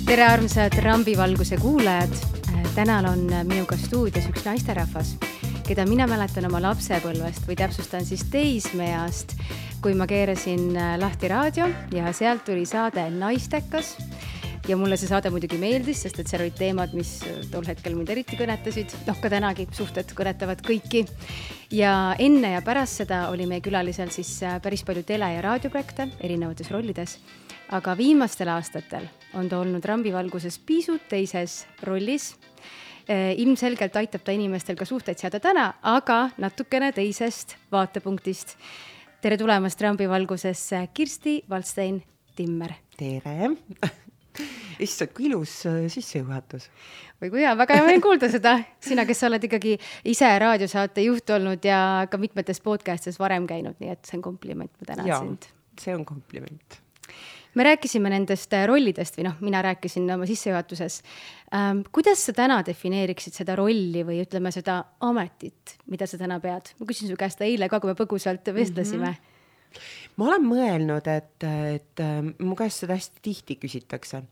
Tere armsad Rambivalguse kuulajad. Tänal on minuga stuudios üks naisterahvas, keda mina mäletan oma lapsepõlvest või täpsustan siis teismeast, kui ma keerasin lahti raadio ja sealt tuli saade Naistekas. Ja mulle see saade muidugi meeldis, sest et seal olid teemad, mis tol hetkel mind eriti kõnetasid. Ka tänagi suhted kõnetavad kõiki. Ja enne ja pärast seda oli meie külalisel siis päris palju tele- ja raadioprojekte erinevates rollides. Aga viimastel aastatel on ta olnud Rambivalguses pisut teises rollis. Ilmselgelt aitab ta inimestel ka suhteid seada täna, aga natukene teisest vaatepunktist. Tere tulemast Rambivalgusesse, Kirsti Valdstein-Timmer. Tere! Issand, kui ilus sissejuhatus. Või kui hea, väga hea meil kuulda seda. Sina, kes sa oled ikkagi ise raadiosaate juht olnud ja ka mitmetes podcastes varem käinud, nii et see on kompliment, ma tänan sind. See on kompliment. Me rääkisime nendest rollidest või mina rääkisin oma sissejuhatuses. Kuidas sa täna defineeriksid seda rolli või ütleme seda ametit, mida sa täna pead? Ma küsin su käest eile ka, kui me põgusalt vestlesime. Ma olen mõelnud, et mu käest seda hästi tihti küsitakse,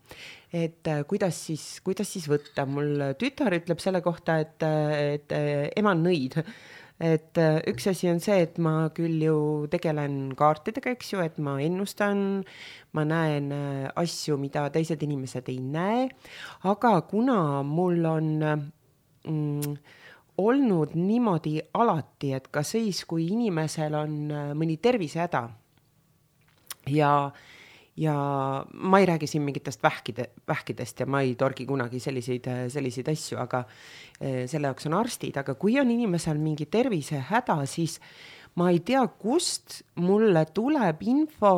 et kuidas siis võtta. Mul tütar ütleb selle kohta, et ema on nõid. Et üks asi on see, et ma küll ju tegelen kaartidega, eks ju, et ma ennustan, ma näen asju, mida teised inimesed ei näe, aga kuna mul on olnud niimoodi alati, et ka siis, kui inimesel on mõni tervisehäda ja ma ei räägi siin mingitest vähkidest ja ma ei torgi kunagi selliseid asju, aga selle jaoks on arstid, aga kui on inimesel mingi tervisehäda, siis ma ei tea, kust mulle tuleb info,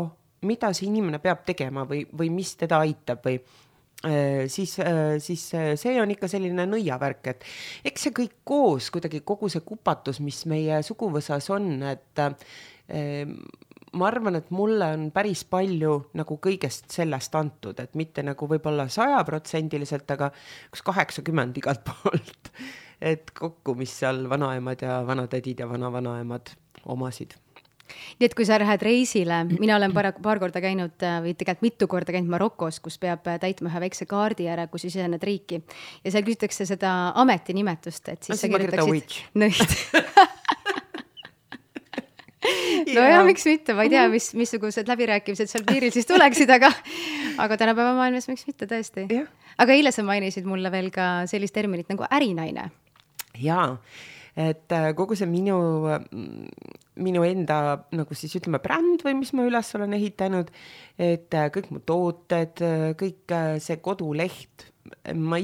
mida see inimene peab tegema või mis teda aitab või siis see on ikka selline nõiavärk, et eks see kõik koos, kuidagi kogu see kupatus, mis meie suguvõsas on, et ma arvan, et mulle on päris palju nagu kõigest sellest antud, et mitte nagu võib-olla 100%, aga 80% igalt poolt, et kokku, mis seal vanaemad ja vanatädid ja vanavanaemad omasid. Nii et kui sa lähed reisile, mina olen paar korda käinud või tegelikult mitu korda käinud Marokos, kus peab täitma ühe väikse kaardi ära, kus sisened riiki ja seal küsitakse seda ametinimetust, et siis sa kirjutaksid nõid. No ja miks mitte, ma ei tea, missugused läbirääkimised seal piiril siis tuleksid, aga tänapäeva maailmas miks mitte tõesti. Aga eile sa mainisid mulle veel ka sellist terminit nagu ärinaine. Jaa, et kogu see minu enda, nagu siis ütleme, bränd või mis ma üles olen ehitanud, et kõik mu tooted, kõik see koduleht, ma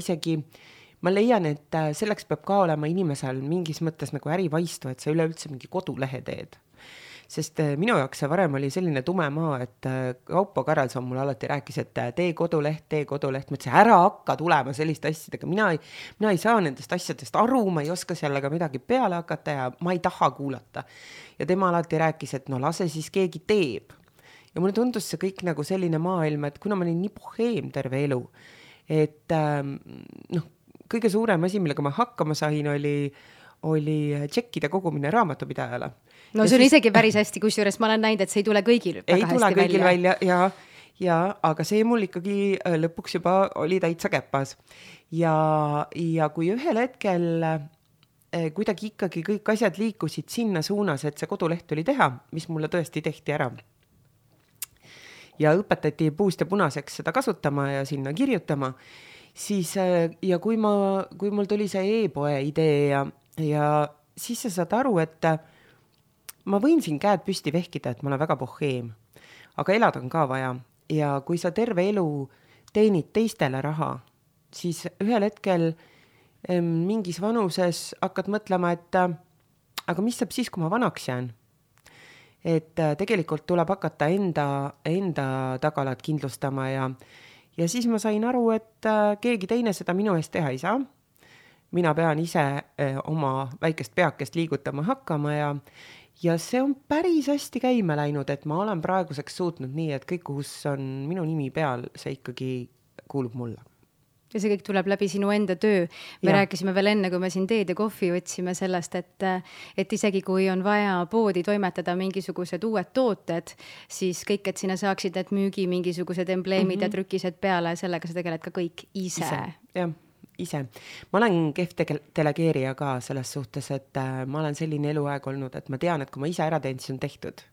leian, et selleks peab ka olema inimesel mingis mõttes nagu ärivaistu, et sa üleüldse mingi kodulehe teed. Sest minu jaoks see varem oli selline tume maa, et Kaupo Karelson mulle alati rääkis, et tee koduleht. Ma ütlesin, ära hakka tulema selliste asjadega. Mina ei saa nendest asjadest aru, ma ei oska sellega midagi peale hakata ja ma ei taha kuulata. Ja tema alati rääkis, et lase siis keegi teeb. Ja mulle tundus see kõik nagu selline maailm, et kuna ma olin nii boheem terve elu, et kõige suurem asi, millega ma hakkama sain, oli tšekkide kogumine raamatupidajale. No see on isegi päris hästi, kusjuures ma olen näinud, et see ei tule kõigil väga hästi välja. Ei tule kõigil välja, aga see mul ikkagi lõpuks juba oli täitsa käpas. Ja kui ühel hetkel kuidagi ikkagi kõik asjad liikusid sinna suunas, et see koduleht oli teha, mis mulle tõesti tehti ära. Ja õpetati puust ja punaseks seda kasutama ja sinna kirjutama, siis ja kui mul tuli see e-poe idee ja siis sa saad aru, et ma võin siin käed püsti vehkida, et ma olen väga boheem, aga elada on ka vaja. Ja kui sa terve elu teenid teistele raha, siis ühel hetkel mingis vanuses hakkad mõtlema, et aga mis saab siis, kui ma vanaks jään? Et tegelikult tuleb hakata enda tagalat kindlustama ja siis ma sain aru, et keegi teine seda minu eest teha ei saa. Mina pean ise oma väikest peakest liigutama hakkama ja see on päris hästi käima läinud, et ma olen praeguseks suutnud nii, et kõik, kus on minu nimi peal, see ikkagi kuulub mulle. ja see kõik tuleb läbi sinu enda töö. Me rääkisime veel enne, kui me siin teed ja kohvi otsime sellest, et isegi kui on vaja poodi toimetada mingisugused uued tooted, siis kõik, et sinna saaksid need müügi mingisugused embleemid ja trükised peale, sellega sa tegeled ka kõik ise. Jah, ise. Ma olen kehv delegeerija ka selles suhtes, et ma olen selline eluaeg olnud, et ma tean, et kui ma ise ära teen, siis on tehtud.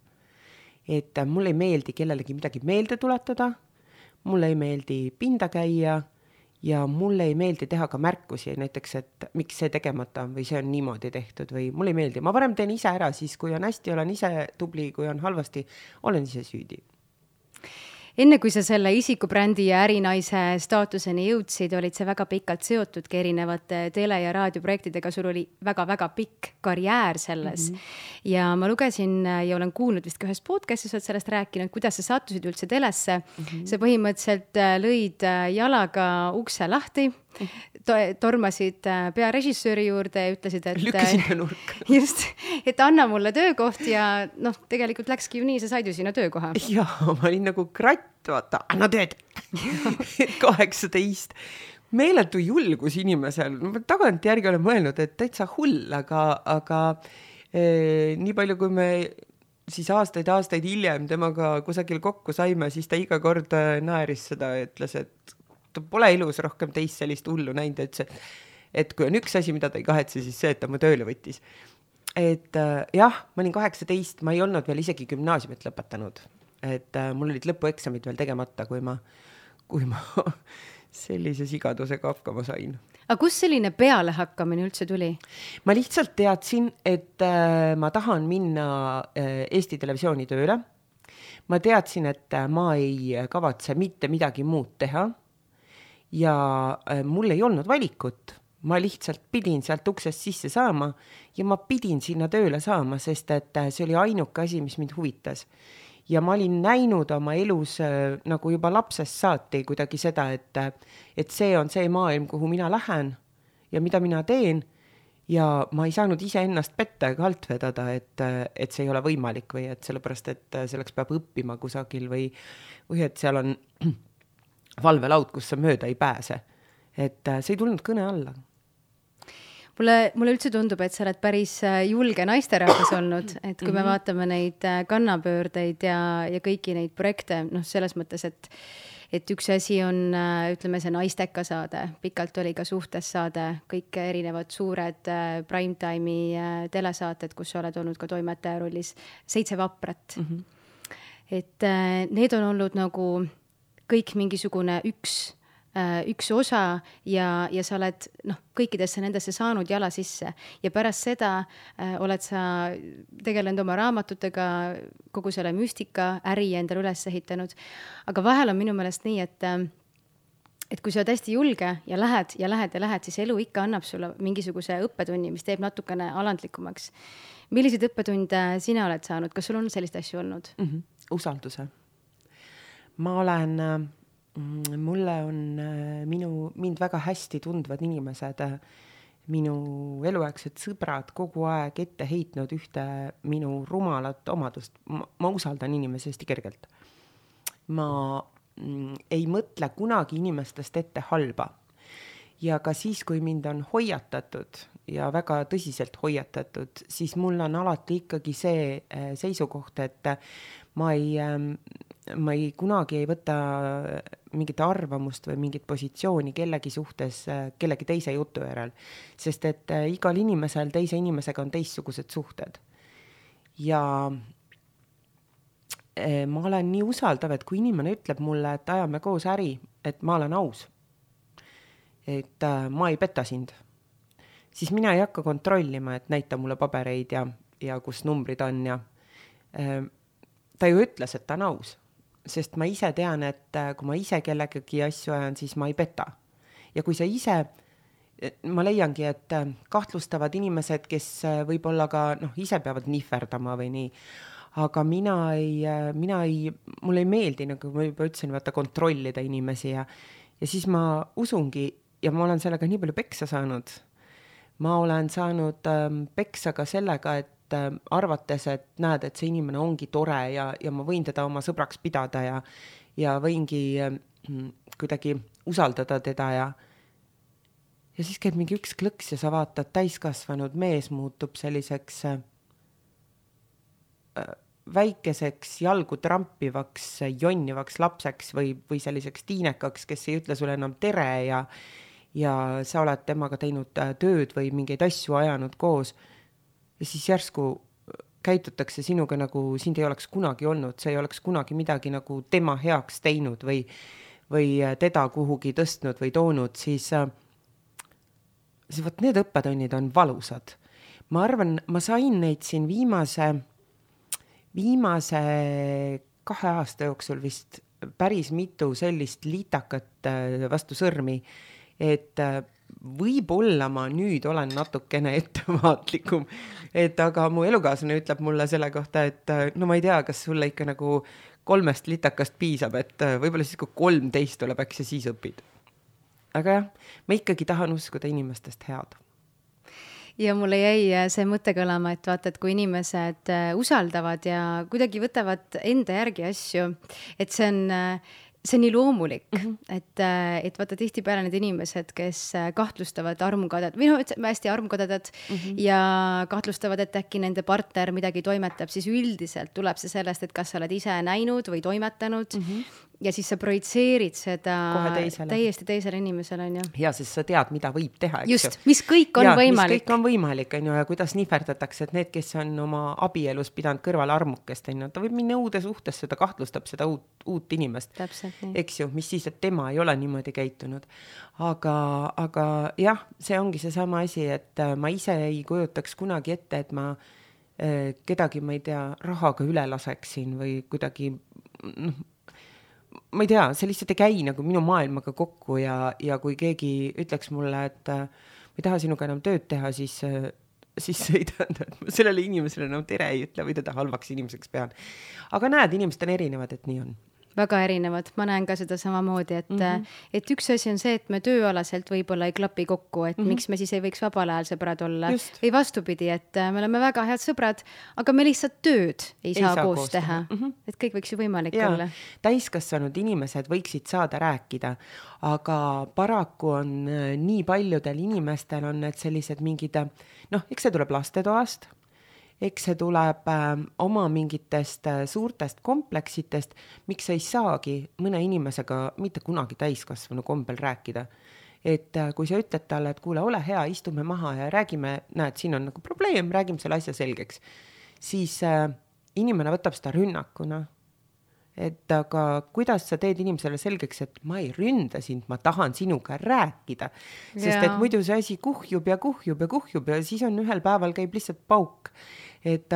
Et mulle ei meeldi kellelegi midagi meelde tuletada, mulle ei meeldi pinda käia ja mulle ei meeldi teha ka märkusi, näiteks, et miks see tegemata või see on niimoodi tehtud või mulle ei meeldi. Ma varem teen ise ära, siis kui on hästi, olen ise tubli, kui on halvasti, olen ise süüdi. Enne kui sa selle isikubrändi ja ärinaise staatuseni jõudsid, olid sa väga pikalt seotudki erinevate tele- ja raadioprojektidega, sul oli väga-väga pikk karjäär selles. Ja ma lugesin ja olen kuulnud vist ka ühes podcastis, oled sellest rääkinud, kuidas sa sattusid üldse telesse. Sa põhimõtteliselt lõid jalaga ukse lahti, tormasid pearežissööri juurde ja ütlesid, et lükkasin ta nurka. Just, et anna mulle töökoht ja tegelikult läkski ju nii, sa said ju sinna töökoha. Ja, ma olin nagu kratt, vaata, anna tööd. 18. Meeletu julgus inimesel. Tagant järgi olen mõelnud, et täitsa hull, aga nii palju, kui me siis aastaid hiljem temaga kusagil kokku saime, siis ta iga kord naeris seda ja ütles, et ta pole elus rohkem teist sellist hullu näinud, et kui on üks asi, mida ta ei kahetse, siis see, et ta mu tööle võttis. Et jah, ma olin 18, ma ei olnud veel isegi gümnaasiumit lõpetanud. Et mul olid lõpueksamid veel tegemata, kui ma sellise sigadusega hakkama sain. Aga kus selline pealehakkamine üldse tuli? Ma lihtsalt teadsin, et ma tahan minna Eesti Televisiooni tööle. Ma teadsin, et ma ei kavatse mitte midagi muud teha ja mul ei olnud valikut. Ma lihtsalt pidin sealt uksest sisse saama ja ma pidin sinna tööle saama, sest et see oli ainuke asi, mis mind huvitas. Ja ma olin näinud oma elus nagu juba lapsest saati kuidagi seda, et see on see maailm, kuhu mina lähen ja mida mina teen ja ma ei saanud ise ennast petta ega alt vedada, et see ei ole võimalik või et sellepärast, et selleks peab õppima kusagil või et seal on valvelaud, kus sa mööda ei pääse. Et see ei tulnud kõne alla. Mulle üldse tundub, et sa oled päris julge naisterahvas olnud, et kui me vaatame neid kannapöördeid ja kõiki neid projekte, selles mõttes, et üks asi on, ütleme, see Naisteka saade, pikalt oli ka Suhtes saade, kõik erinevad suured primetime'i telesaated, kus sa oled olnud ka toimetaja rollis, 7 vaprat. Et need on olnud nagu kõik mingisugune üks osa ja sa oled kõikidesse nendesse saanud jala sisse ja pärast seda oled sa tegelenud oma raamatutega, kogu selle müstika äri endale üles ehitanud. Aga vahel on minu meelest nii, et kui sa oled hästi julge ja lähed, siis elu ikka annab sulle mingisuguse õppetunni, mis teeb natukene alandlikumaks. Milliseid õppetunde sina oled saanud? Kas sul on sellist asju olnud? Usalduse. Mulle on mind väga hästi tundvad inimesed, minu eluaegsed sõbrad kogu aeg ette heitnud ühte minu rumalat omadust. Ma usaldan inimesi hästi kergelt. Ma ei mõtle kunagi inimestest ette halba. Ja ka siis, kui mind on hoiatatud ja väga tõsiselt hoiatatud, siis mul on alati ikkagi see seisukoht, et ma ei kunagi ei võta mingit arvamust või mingit positsiooni kellegi suhtes kellegi teise jutu järel, sest et igal inimesel teise inimesega on teistsugused suhted. Ja ma olen nii usaldav, et kui inimene ütleb mulle, et ajame koos äri, et ma olen aus, et ma ei peta sind, siis mina ei hakka kontrollima, et näita mulle pabereid ja kus numbrid on ja ta ju ütles, et ta on aus. Sest ma ise tean, et kui ma ise kellegagi asju ajan, siis ma ei peta. Ja kui sa ise, ma leiangi, et kahtlustavad inimesed, kes võib-olla ka ise peavad nihverdama või nii, aga mulle ei meeldi, nagu ma juba ütlesin, vaata kontrollida inimesi ja siis ma usungi ja ma olen sellega nii palju peksa saanud. Ma olen saanud peksa ka sellega, et arvates, et näed, et see inimene ongi tore ja ma võin teda oma sõbraks pidada ja võingi kuidagi usaldada teda ja siis käib mingi üks klõks ja sa vaatad, täiskasvanud mees muutub selliseks väikeseks jalgu trampivaks, jonnivaks lapseks või selliseks tiinekaks, kes ei ütle sulle enam tere ja sa oled temaga teinud tööd või mingeid asju ajanud koos. Ja siis järsku käitutakse sinuga nagu sind ei oleks kunagi olnud, sa ei oleks kunagi midagi nagu tema heaks teinud või teda kuhugi tõstnud või toonud, siis võt need õppetunnid on valusad. Ma arvan, ma sain neid siin viimase 2 aasta jooksul vist päris mitu sellist liitakat vastu sõrmi, et võib-olla ma nüüd olen natukene ettevaatlikum, aga mu elukaaslane ütleb mulle selle kohta, et no ma ei tea, kas sulle ikka nagu 3 litakast piisab, et võib-olla siis kui 13 tuleb, äkki sa siis õpid. Aga jah, ma ikkagi tahan uskuda inimestest head. Ja mulle jäi see mõte kõlama, et vaata, et kui inimesed usaldavad ja kuidagi võtavad enda järgi asju, et see on nii loomulik, et vaata tihtipeale need inimesed, kes kahtlustavad armukadad, või hästi armukadad ja kahtlustavad, et äkki nende partner midagi toimetab, siis üldiselt tuleb see sellest, et kas sa oled ise näinud või toimetanud ja siis sa projitseerid seda täiesti teisele inimesele, on ju. Ja siis sa tead, mida võib teha, eks just, mis kõik on võimalik. Mis kõik on võimalik, on ju, ja kuidas nihverdatakse, et need, kes on oma abielus pidanud kõrval armukest, on ju, ta võib minna uude suhtesse, ta kahtlustab seda uut inimest. Täpselt nii. Eks ju, mis siis, et tema ei ole niimoodi käitunud. Aga jah, see ongi see sama asi, et ma ise ei kujutaks kunagi ette, et ma kedagi, ma ei tea, rahaga üle laseksin või kuidagi, ma ei tea, see lihtsalt ei käi nagu minu maailmaga kokku ja kui keegi ütleks mulle, et ma ei taha sinuga enam tööd teha, siis ei tähenda, et ma sellele inimesele enam tere ei ütle või teda halvaks inimeseks pean. Aga näed, inimesed on erinevad, et nii on. Väga erinevad, ma näen ka seda samamoodi, et üks asi on see, et me tööalaselt võib-olla ei klapi kokku, et miks me siis ei võiks vabal ajal sõbrad olla. Just. Või vastupidi, et me oleme väga head sõbrad, aga me lihtsalt tööd ei saa koos teha. Et kõik võiks ju võimalik olla. Täiskasvanud inimesed võiksid saada rääkida, aga paraku on nii paljudel inimestel on need sellised mingid, eks see tuleb lastetoast, eks see tuleb oma mingitest suurtest kompleksitest, miks ei saagi mõne inimesega mitte kunagi täiskasvanu kombel rääkida. Et kui sa ütled talle, et kuule, ole hea, istume maha ja räägime, näed, siin on nagu probleem, räägime selle asja selgeks, siis inimene võtab seda rünnakuna. Et aga kuidas sa teed inimesele selgeks, et ma ei ründa sind, ma tahan sinuga rääkida. Sest et muidu see asi kuhjub ja siis on ühel päeval käib lihtsalt pauk. Et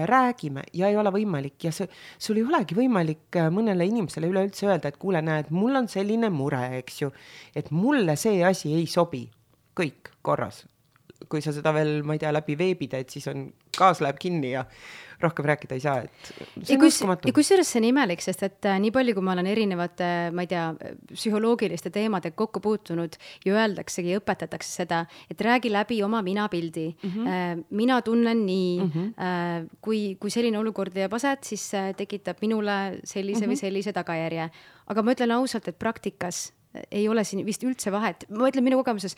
räägime ja ei ole võimalik ja sul ei olegi võimalik mõnele inimesele üleüldse öelda, et kuule, näed, mul on selline mure, eks ju, et mulle see asi ei sobi. Kõik korras. Kui sa seda veel, ma ei tea, läbi veebida, et siis on kaas läheb kinni ja rohkem rääkida ei saa, et see on uskumatu. Ja kusjuures see on imelik, sest et nii palju, kui ma olen erinevate, ma ei tea, psühholoogiliste teemade kokku puutunud ja öeldaksegi, õpetatakse seda, et räägi läbi oma minapildi. Mina tunnen nii, kui selline olukord jääb aset, siis tekitab minule sellise või sellise tagajärje. Aga ma ütlen ausalt, et praktikas ei ole siin vist üldse vahet. Ma ütlen minu kogemuses,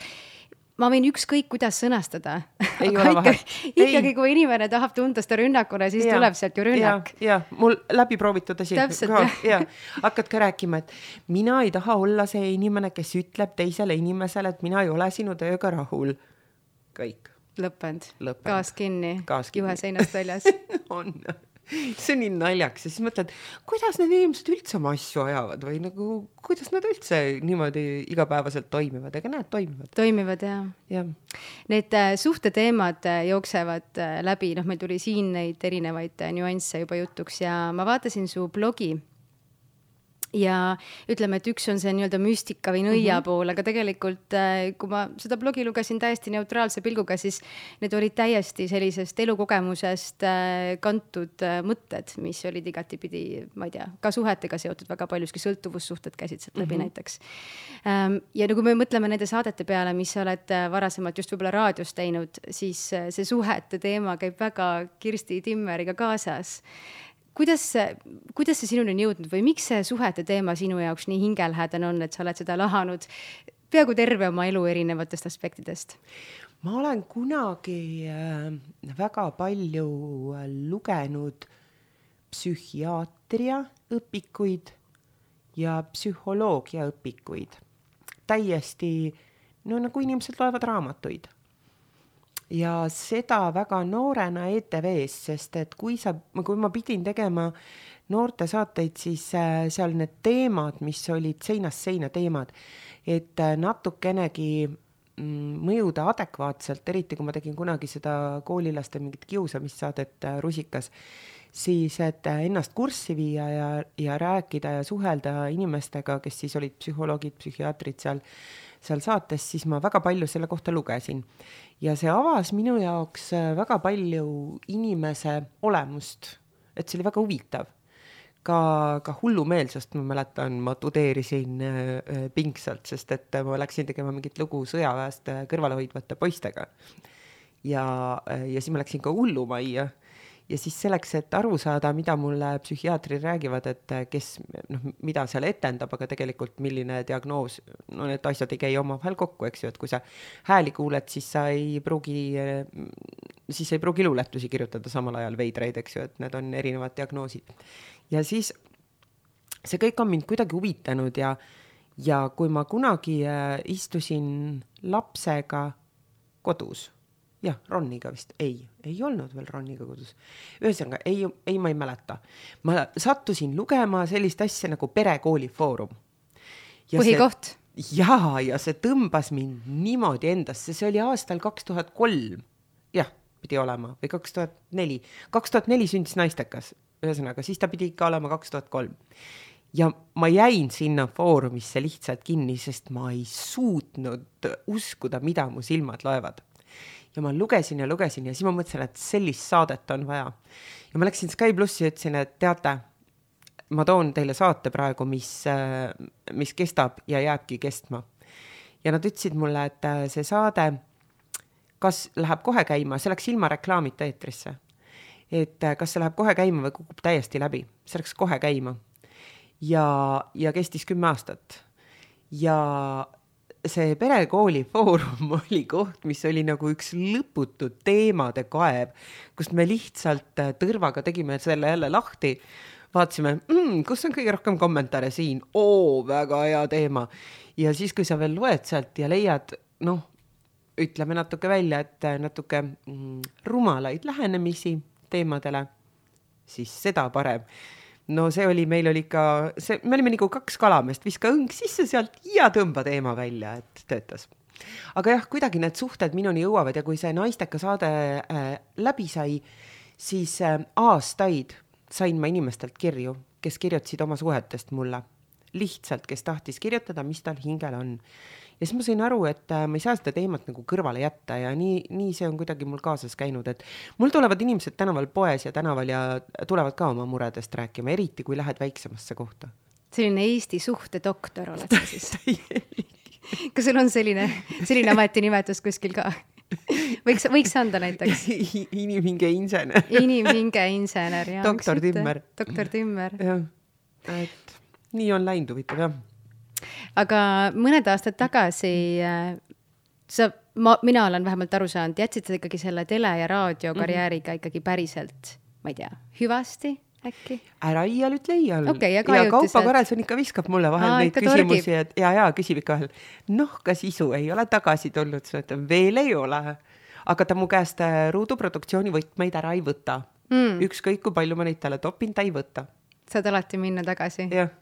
ma võin ükskõik, kuidas sõnastada. Ikkagi, kui inimene tahab tunda seda rünnakuna, siis tuleb sealt ju rünnak. Ja, mul läbi proovitud asi. Hakkad ka rääkima, et mina ei taha olla see inimene, kes ütleb teisele inimesele, et mina ei ole sinu tööga rahul. Kõik. Lõppend. Gaas kinni. Juhe seinast väljas. On. See on nii naljaks ja siis mõtled, kuidas need inimesed üldse oma asju ajavad või nagu, kuidas nad üldse niimoodi igapäevaselt toimivad, ega need toimivad. Toimivad, jah. Need suhteteemad jooksevad läbi, meil tuli siin neid erinevaid nüansse juba jutuks ja ma vaatasin su blogi ja ütleme, et üks on see nii-öelda müstika või nõia pool, aga tegelikult, kui ma seda blogi lugesin täiesti neutraalse pilguga, siis need olid täiesti sellisest elukogemusest kantud mõtted, mis olid igatipidi, ma ei tea, ka suhetega seotud väga paljuski, sõltuvussuhted käisid sealt läbi näiteks. Ja kui me mõtleme nende saadete peale, mis sa oled varasemalt just võib-olla raadios teinud, siis see suhete teema käib väga Kirsti Timmeriga kaasas. Kuidas see sinuni on jõudnud või miks see suhete teema sinu jaoks nii hingelhädane on, et sa oled seda lahanud peaaegu terve oma elu erinevatest aspektidest? Ma olen kunagi väga palju lugenud psühhiaatria õpikuid ja psühholoogia õpikuid. Täiesti, no nagu inimesed loevad raamatuid. Ja seda väga noorena ETV-s, sest et kui ma pidin tegema noorte saateid, siis seal need teemad, mis olid seinast seina teemad, et natukenegi mõjuda adekvaatselt, eriti kui ma tegin kunagi seda koolilaste mingit kiusamissaadet Rusikas, siis et ennast kurssi viia ja rääkida ja suhelda inimestega, kes siis olid psühholoogid, psühhiaatrid seal saates, siis ma väga palju selle kohta lugesin. Ja see avas minu jaoks väga palju inimese olemust, et see oli väga huvitav. Ka hullumeelsust, ma mäletan, ma tudeerisin pingsalt, sest et ma läksin tegema mingit lugu sõjaväest kõrvalehoidvate poistega. Ja siis ma läksin ka hullumajja. Ja siis selleks, et aru saada, mida mulle psühhiaatrid räägivad, et mida seal etendab, aga tegelikult milline diagnoos, need asjad ei käi omavahel kokku, eks ju, et kui sa hääli kuuled, siis ei pruugi luuletusi kirjutada samal ajal veidraid, eks ju, et need on erinevad diagnoosid. Ja siis see kõik on mind kuidagi huvitanud ja kui ma kunagi istusin lapsega kodus, jah, Roniga vist, ei olnud veel Roniga kodus. Ühesõnaga, ma ei mäleta. Ma sattusin lugema sellist asja nagu Perekooli Foorum. Põhikoht. Ja see tõmbas mind niimoodi endasse. See oli aastal 2003. Jah, pidi olema. Või 2004. 2004 sündis naistekas. Ühesõnaga, siis ta pidi ikka olema 2003. Ja ma jäin sinna foorumisse lihtsalt kinni, sest ma ei suutnud uskuda, mida mu silmad loevad. Ja ma lugesin ja siis ma mõtlesin, et sellist saadet on vaja. Ja ma läksin Sky Plussi ja ütlesin, et teate, ma toon teile saate praegu, mis kestab ja jääbki kestma. Ja nad ütlesid mulle, et see saade, kas läheb kohe käima, see läks ilma reklaamita eetrisse. Et kas see läheb kohe käima või kukub täiesti läbi. See läks kohe käima. Ja kestis 10 aastat. Ja see Perekooli Foorum oli koht, mis oli nagu üks lõputu teemade kaev, kust me lihtsalt tõrvaga tegime selle jälle lahti, vaatasime, kus on kõige rohkem kommentaare siin, väga hea teema. Ja siis, kui sa veel loed sealt ja leiad, ütleme natuke välja, et natuke rumalaid lähenemisi teemadele, siis seda parem. No see oli, meil olime nagu 2 kalamest, viska õng sisse sealt ja tõmba teema välja, et töötas. Aga jah, kuidagi need suhted minuni jõuavad ja kui see naisteka saade läbi sai, siis aastaid sain ma inimestelt kirju, kes kirjutasid oma suhetest mulle. Lihtsalt, kes tahtis kirjutada, mis tal hingel on. Ja siis ma sain aru, et ma ei saa seda teemat nagu kõrvale jätta ja nii see on kuidagi mul kaasas käinud, et mul tulevad inimesed tänaval poes ja tänaval ja tulevad ka oma muredest rääkima, eriti kui lähed väiksemasse kohta. Selline Eesti suhtedoktor oled sa siis? Kas sul on selline ametinimetus kuskil ka? Võiks anda näiteks? Inimhinge insener. Inimhinge insener, jah. Doktor Timmer. Doktor Timmer. Jah, et nii on läinud huvitav, jah. Aga mõned aastad tagasi mina olen vähemalt aru saanud, jätsid sa ikkagi selle tele- ja raadiokarjääriga ikkagi päriselt, ma ei tea, hüvasti äkki? Ära iial ütle iial. Okay, ja Kaupa Karelson ikka viskab mulle vahel neid küsimusi ja küsib ikka vahel, kas isu ei ole tagasi tulnud, veel ei ole, aga ta mu käest ruuduproduktsiooni võtmeid ära ei võta. Ükskõik kui palju ma neid talle topin, ta ei võta. Saad alati minna tagasi? Jah.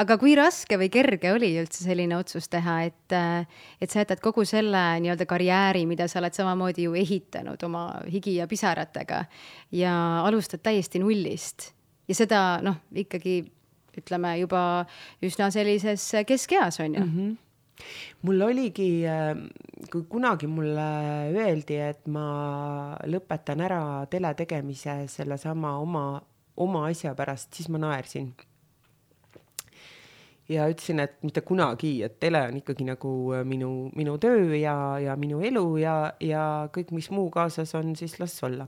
Aga kui raske või kerge oli üldse selline otsus teha, et sa jätad kogu selle nii-öelda karjääri, mida sa oled samamoodi ju ehitanud oma higi ja pisaratega ja alustad täiesti nullist ja seda ikkagi ütleme juba üsna sellises keskeas on ju? Mul oligi, kui kunagi mulle öeldi, et ma lõpetan ära tele tegemise selle sama oma asja pärast, siis ma naersin. Ja ütlesin, et mitte kunagi, et tele on ikkagi nagu minu töö ja minu elu ja kõik, mis muu kaasas on, siis las olla.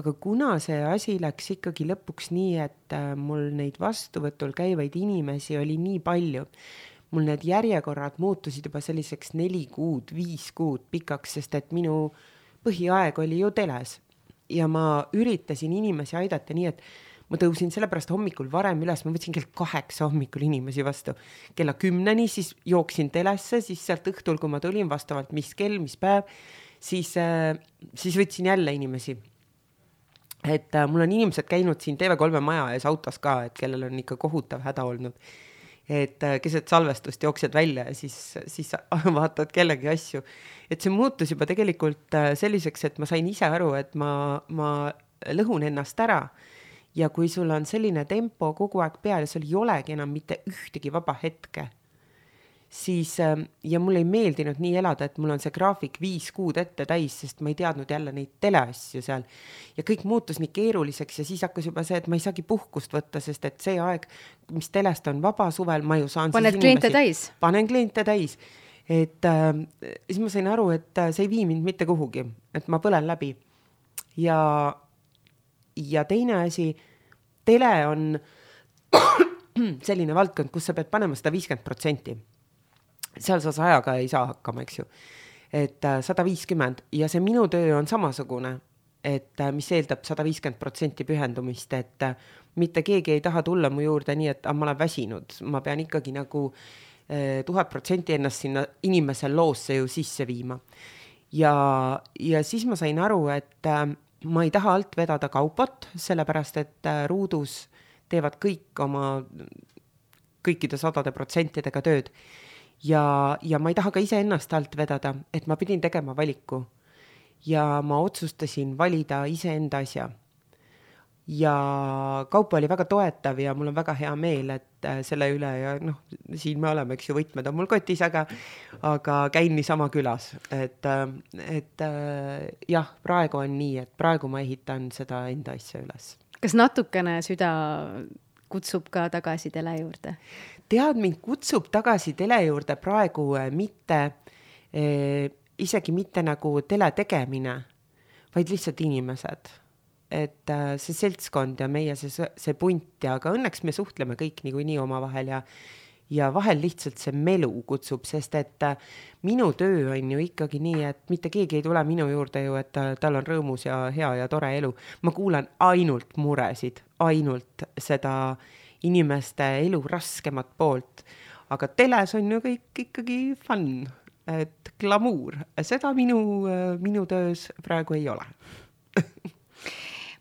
Aga kuna see asi läks ikkagi lõpuks nii, et mul neid vastuvõtul käivaid inimesi oli nii palju, mul need järjekorrad muutusid juba selliseks 4 kuud, 5 kuud pikaks, sest et minu põhiaeg oli ju teles ja ma üritasin inimesi aidata nii, et ma tõusin sellepärast hommikul varem üles, ma võtsin kell 8 hommikul inimesi vastu. Kella 10 siis jooksin telesse, siis sealt õhtul, kui ma tulin vastavalt mis kell, mis päev, siis võtsin jälle inimesi. Et mul on inimesed käinud siin TV3 maja ees autos ka, et kellel on ikka kohutav häda olnud. Et keset salvestust jooksed välja ja siis vaatad kellegi asju. Et see muutus juba tegelikult selliseks, et ma sain ise aru, et ma lõhun ennast ära. Ja kui sul on selline tempo kogu aeg peal ja sul ei olegi enam mitte ühtegi vaba hetke, siis, ja mul ei meeldinud nii elada, et mul on see graafik 5 kuud ette täis, sest ma ei teadnud jälle neid teleasju seal. Ja kõik muutus nii keeruliseks ja siis hakkas juba see, et ma ei saagi puhkust võtta, sest et see aeg, mis telest on vaba suvel, ma ju saan Paned kliente täis? Panen kliente täis. Et siis ma sain aru, et see ei vii mind mitte kuhugi, et ma põlen läbi. Ja teine asi, tele on selline valdkond, kus sa pead panema 150%. Seal sa 100 ei saa hakkama, eks ju. Et 150 ja see minu töö on samasugune, et mis eeldab 150% pühendumist, et mitte keegi ei taha tulla mu juurde nii, et ma olen väsinud. Ma pean ikkagi nagu 1000% ennast sinna inimese loosse ju sisse viima. Ja siis ma sain aru, et ma ei taha alt vedada kaupot, sellepärast, et ruudus teevad kõik oma kõikide 100% tööd. Ja ma ei taha ka ise ennast alt vedada, et ma pidin tegema valiku. Ja ma otsustasin valida ise enda asja. Ja kaupa oli väga toetav ja mul on väga hea meel, et selle üle ja siin me oleme, eks ju, võtmed on mul kotis, aga käin niisama külas. Et jah, praegu on nii, et praegu ma ehitan seda enda asja üles. Kas natukene süda kutsub ka tagasi tele juurde? Tead, mind kutsub tagasi tele juurde praegu mitte, isegi mitte nagu tele tegemine, vaid lihtsalt inimesed. Et see seltskond ja meie see punt ja aga õnneks me suhtleme kõik nii omavahel ja vahel lihtsalt see melu kutsub, sest et minu töö on ju ikkagi nii, et mitte keegi ei tule minu juurde ju, et tal on rõõmus ja hea ja tore elu. Ma kuulan ainult muresid, ainult seda inimeste elu raskemat poolt, aga teles on ju kõik ikkagi fun, et glamuur. Seda minu töös praegu ei ole.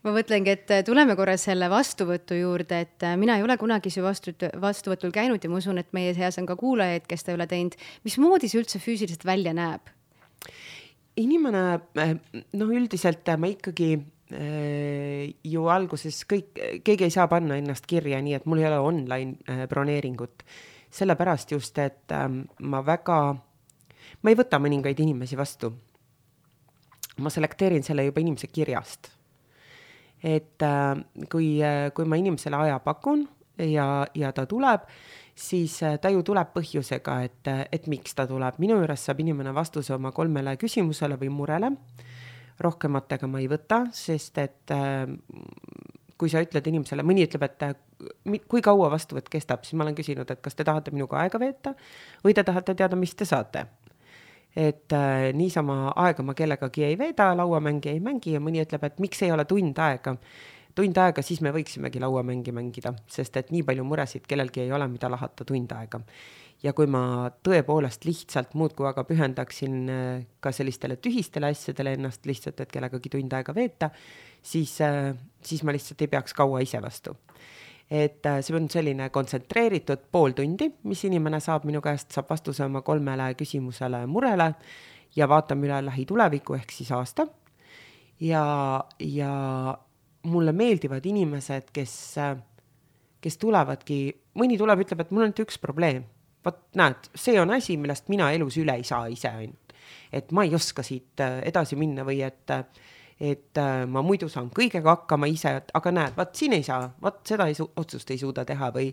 Ma mõtlengi, et tuleme korra selle vastuvõtu juurde, et mina ei ole kunagi see vastuvõtul käinud ja ma usun, et meie seas on ka kuulajaid, kes ta ei ole teinud. Mismoodi see üldse füüsiliselt välja näeb? Inimene, üldiselt ma ikkagi ju alguses keegi ei saa panna ennast kirja nii, et mul ei ole online broneeringut. Sellepärast just, et ma ei võta mõningaid inimesi vastu. Ma selekteerin selle juba inimese kirjast. Et kui ma inimesele aja pakun ja ta tuleb, siis ta ju tuleb põhjusega, et miks ta tuleb. Minu juures saab inimene vastuse oma 3 küsimusele või murele. Rohkematega ma ei võta, sest et kui sa ütled inimesele, mõni ütleb, et kui kaua vastuvõtt kestab, siis ma olen küsinud, et kas te tahate minuga aega veeta või te tahate teada, mis te saate. Et niisama aega ma kellegagi ei veeda, lauamängi ei mängi ja mõni ütleb, et miks ei ole tund aega, siis me võiksimegi lauamängi mängida, sest et nii palju muresid kellelgi ei ole, mida lahata tund aega. Ja kui ma tõepoolest lihtsalt muudkui aga pühendaksin ka sellistele tühistele asjadele ennast lihtsalt, et kellegagi tund aega veeta, siis ma lihtsalt ei peaks kaua ise vastu. Et see on selline kontsentreeritud pool tundi, mis inimene saab minu käest, saab vastuse oma 3 küsimusele murele ja vaatame üle lähituleviku ehk siis aasta. Ja mulle meeldivad inimesed, kes tulevadki, mõni tuleb, ütleb, et mul on üks probleem. Vaat näed, see on asi, millest mina elus üle ei saa ise ainult. Et ma ei oska siit edasi minna või et ma muidu saan kõigega hakkama ise, aga näed, vaat siin ei saa, vaat seda otsust ei suuda teha või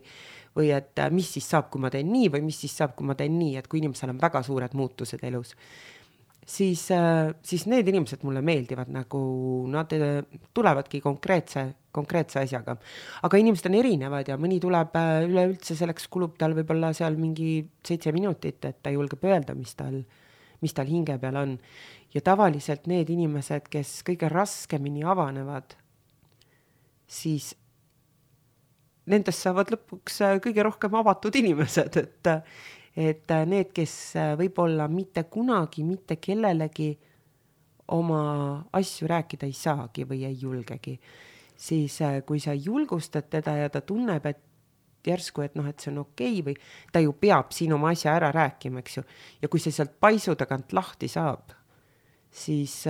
et mis siis saab, kui ma teen nii või mis siis saab, kui ma teen nii, et kui inimesel on väga suured muutused elus. siis need inimesed mulle meeldivad, nagu nad tulevadki konkreetse asjaga. Aga inimesed on erinevad ja mõni tuleb üleüldse, selleks kulub tal võib-olla seal mingi 7 minutit, et ta julgeb öelda, mis tal hinge peal on. Ja tavaliselt need inimesed, kes kõige raskemini avanevad, siis nendest saavad lõpuks kõige rohkem avatud inimesed, et need, kes võib-olla mitte kunagi, mitte kellelegi oma asju rääkida ei saagi või ei julgegi, siis kui sa julgustad teda ja ta tunneb, et järsku, et et see on okei või ta ju peab siin oma asja ära rääkima, eks ju. Ja kui see sealt paisu tagant lahti saab, siis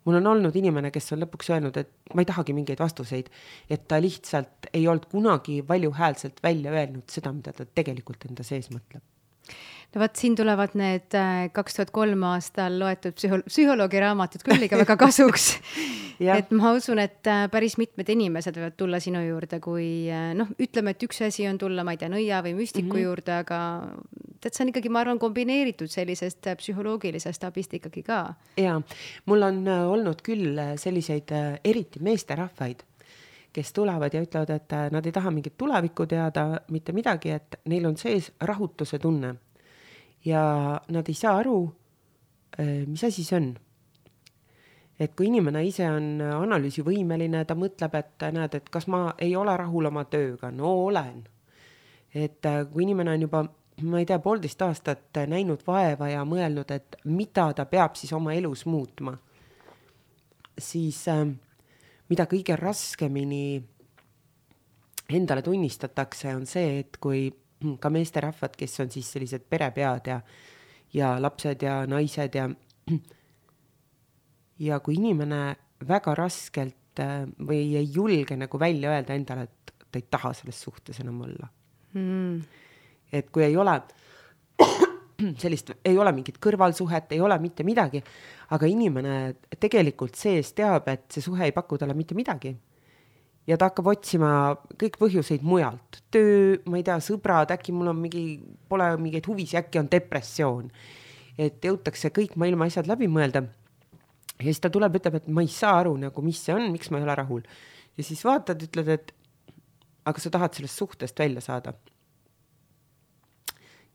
mul on olnud inimene, kes on lõpuks öelnud, et ma ei tahagi mingeid vastuseid, et ta lihtsalt ei olnud kunagi valjuhäälselt välja öelnud seda, mida ta tegelikult enda sees mõtleb. No vaat siin tulevad need 2003 aastal loetud psühholoogi raamatud küll ikka väga kasuks. Et ma usun, et päris mitmed inimesed võivad tulla sinu juurde, kui ütleme, et üks asi on tulla, ma ei tea, nõia või müstiku juurde, aga see on ikkagi, ma arvan, kombineeritud sellisest psühholoogilisest abist ikkagi ka. Ja, mul on olnud küll selliseid eriti meesterahvaid, kes tulevad ja ütlevad, et nad ei taha mingit tulevikku teada, mitte midagi, et neil on sees rahutuse tunne. Ja nad ei saa aru, mis asi see on. Et kui inimene ise on analüüsivõimeline, ta mõtleb, et näed, et kas ma ei ole rahul oma tööga, no olen. Et kui inimene on juba, ma ei tea, 1,5 aastat näinud vaeva ja mõelnud, et mida ta peab siis oma elus muutma, siis mida kõige raskemini endale tunnistatakse, on see, et kui ka meesterahvad, kes on siis sellised perepead ja lapsed ja naised ja kui inimene väga raskelt või ei julge nagu välja öelda endale, et ta ei taha selles suhtes enam olla. Et kui ei ole sellist, ei ole mingit kõrvalsuhet, ei ole mitte midagi, aga inimene tegelikult sees teab, et see suhe ei paku talle mitte midagi. Ja ta hakkab otsima kõik põhjuseid mujalt. Töö, ma ei tea, sõbrad, äkki mul on pole mingeid huvisi, äkki on depressioon. Et jõutakse kõik maailma asjad läbi mõelda. Ja siis ta tuleb, ütleb, et ma ei saa aru, nagu, mis see on, miks ma ei ole rahul. Ja siis vaatad, ütled, et aga sa tahad sellest suhtest välja saada.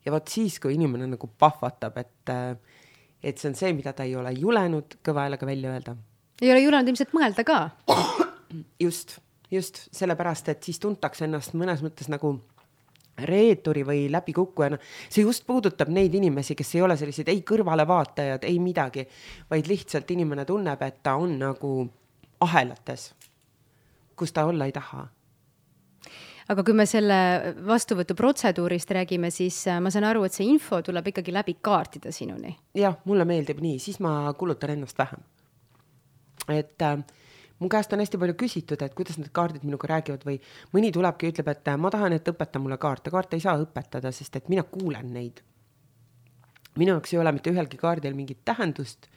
Ja vaat siis, kui inimene nagu pahvatab, et see on see, mida ta ei ole julenud kõva häälega välja öelda. Ei ole julenud ilmselt mõelda ka? Just sellepärast, et siis tuntakse ennast mõnes mõttes nagu reeturi või läbikukkujana. See just puudutab neid inimesi, kes ei ole sellised ei kõrvalevaatajad, ei midagi, vaid lihtsalt inimene tunneb, et ta on nagu ahelates, kus ta olla ei taha. Aga kui me selle vastuvõtu protseduurist räägime, siis ma saan aru, et see info tuleb ikkagi läbi kaartida sinuni. Jah, mulle meeldib nii, siis ma kulutan ennast vähem. Et mu käest on hästi palju küsitud, et kuidas need kaardid minuga räägivad või mõni tulebki ja ütleb, et ma tahan, et õpeta mulle kaarte. Kaarte ei saa õpetada, sest et mina kuulen neid. Minu jaoks ei ole mitte ühelgi kaardil mingit tähendust,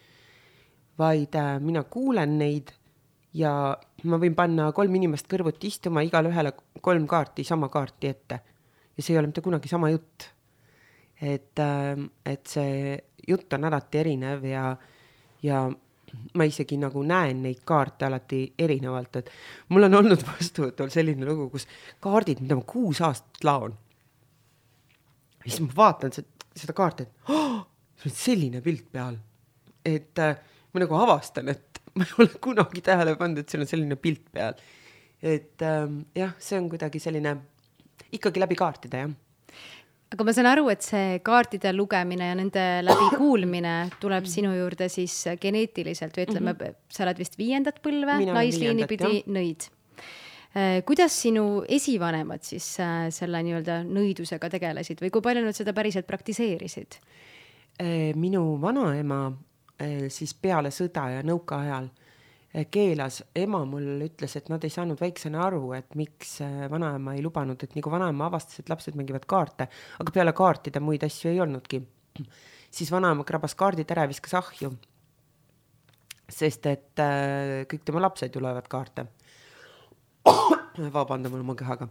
vaid mina kuulen neid ja ma võin panna 3 inimest kõrvuti istuma, igal ühele 3 kaarti, sama kaarti ette. Ja see ei ole mitte kunagi sama jutt. Et see jutt on alati erinev ja ma isegi nagu näen neid kaarte alati erinevalt, et mul on olnud vastuvõtul selline lugu, kus kaardid, mida ma 6 aastat laon. Ja siis ma vaatan seda kaarti, et see on selline pilt peal. Et ma nagu avastan, et ma ei ole kunagi tähele pannud, et seal on selline pilt peal. Et jah, see on kuidagi selline ikkagi läbi kaartida, jah. Aga ma saan aru, et see kaartide lugemine ja nende läbi kuulmine tuleb sinu juurde siis geneetiliselt või ütleme, sa oled vist 5. põlve, naisliini pidi nõid. Kuidas sinu esivanemad siis selle nii-öelda nõidusega tegelesid või kui palju nad seda päriselt praktiseerisid? Minu vanaema siis peale sõda ja nõuka ajal keelas, ema mul ütles, et nad ei saanud väiksena aru, et miks vanaema ei lubanud, et nagu vanaema avastas, et lapsed mängivad kaarte, aga peale kaartida muid asju ei olnudki. Siis vanaema krabas kaardid ära ja viskas ahju, sest et kõik tema lapsed ju loevad kaarte. Vabandame oma kehaga.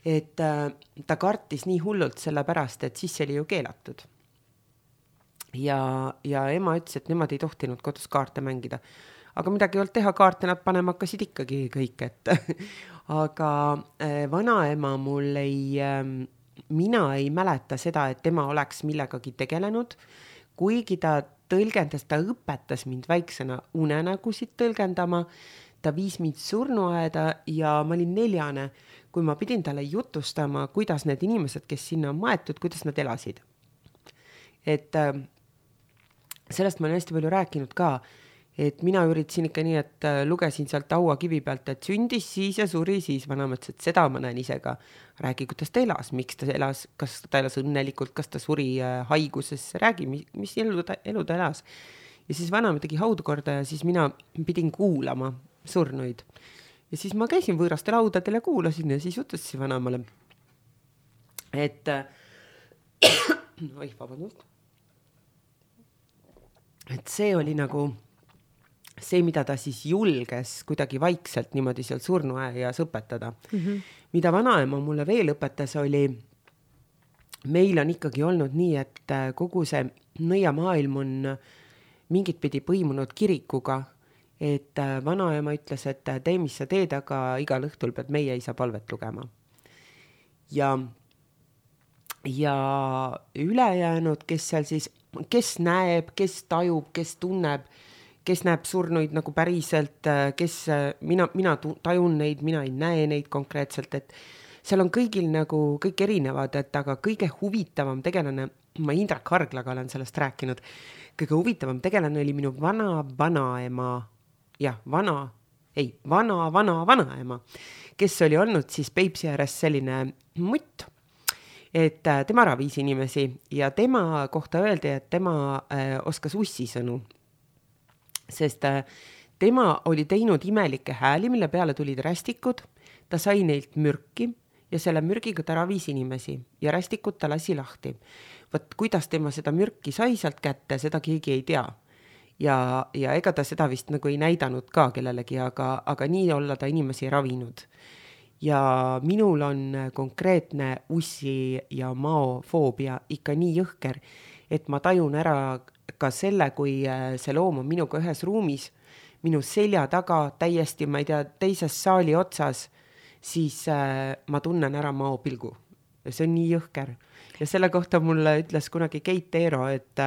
Et ta kartis nii hullult selle pärast, et siis see oli ju keelatud. ja ema ütles, et nemad ei tohtinud kodus kaarte mängida. Aga midagi ei olnud teha, kaarte nad panema hakkasid ikkagi kõik, et aga vanaema mul mina ei mäleta seda, et tema oleks millegagi tegelenud, kuigi ta tõlgendas, ta õpetas mind väiksena unenägusid tõlgendama, ta viis mind surnuaeda ja ma olin 4, kui ma pidin talle jutustama, kuidas need inimesed, kes sinna on maetud, kuidas nad elasid. Et sellest ma olen hästi palju rääkinud ka, et mina üritasin ikka nii, et lugesin sealt hauakivi pealt, et sündis siis ja suri siis, vanaema ütles, et seda ma näen ise ka. Räägi, kuidas ta elas, miks ta elas, kas ta elas õnnelikult, kas ta suri haiguses, räägi, mis elu ta elas. Ja siis vanaema tegi haudu korda ja siis mina pidin kuulama surnuid. Ja siis ma käisin võõrastel haudadel ja kuulasin ja siis jutustasin vanaemale, et vabandust. Et see oli nagu see, mida ta siis julges kuidagi vaikselt niimoodi seal surnuaias õpetada. Mida vanaema mulle veel õpetas oli, meil on ikkagi olnud nii, et kogu see nõiamaailm on mingit pidi põimunud kirikuga, et vanaema ütles, et tee, mis sa teed, aga igal õhtul pead meie isa palvet lugema. Ja ülejäänud, kes seal siis, kes näeb, kes tajub, kes tunneb, kes näeb surnuid nagu päriselt, kes mina tajun neid, mina ei näe neid konkreetselt, et seal on kõigil nagu kõik erinevad, et aga kõige huvitavam tegelane, ma Indrek Harglaga olen sellest rääkinud, kõige huvitavam tegelane oli minu vanaema, vanaema, kes oli olnud siis Peipsi ääres selline mutt, et tema ravis inimesi ja tema kohta öeldi, et tema oskas ussisõnu. Sest tema oli teinud imelikke hääli, mille peale tulid rästikud, ta sai neilt mürki ja selle mürgiga ta ravis inimesi ja rästikud ta lasi lahti. Võt, kuidas tema seda mürki sai sealt kätte, seda keegi ei tea. Ja ega ta seda vist nagu ei näidanud ka kellelegi, aga nii olla ta inimesi ravinud. Ja minul on konkreetne ussi ja maofoobia ikka nii jõhker, et ma tajun ära ka selle, kui see loom on minuga ühes ruumis, minu selja taga täiesti, ma ei tea, teises saali otsas, siis ma tunnen ära maopilgu. Ja see on nii jõhker. Ja selle kohta mulle ütles kunagi Keit Eero, et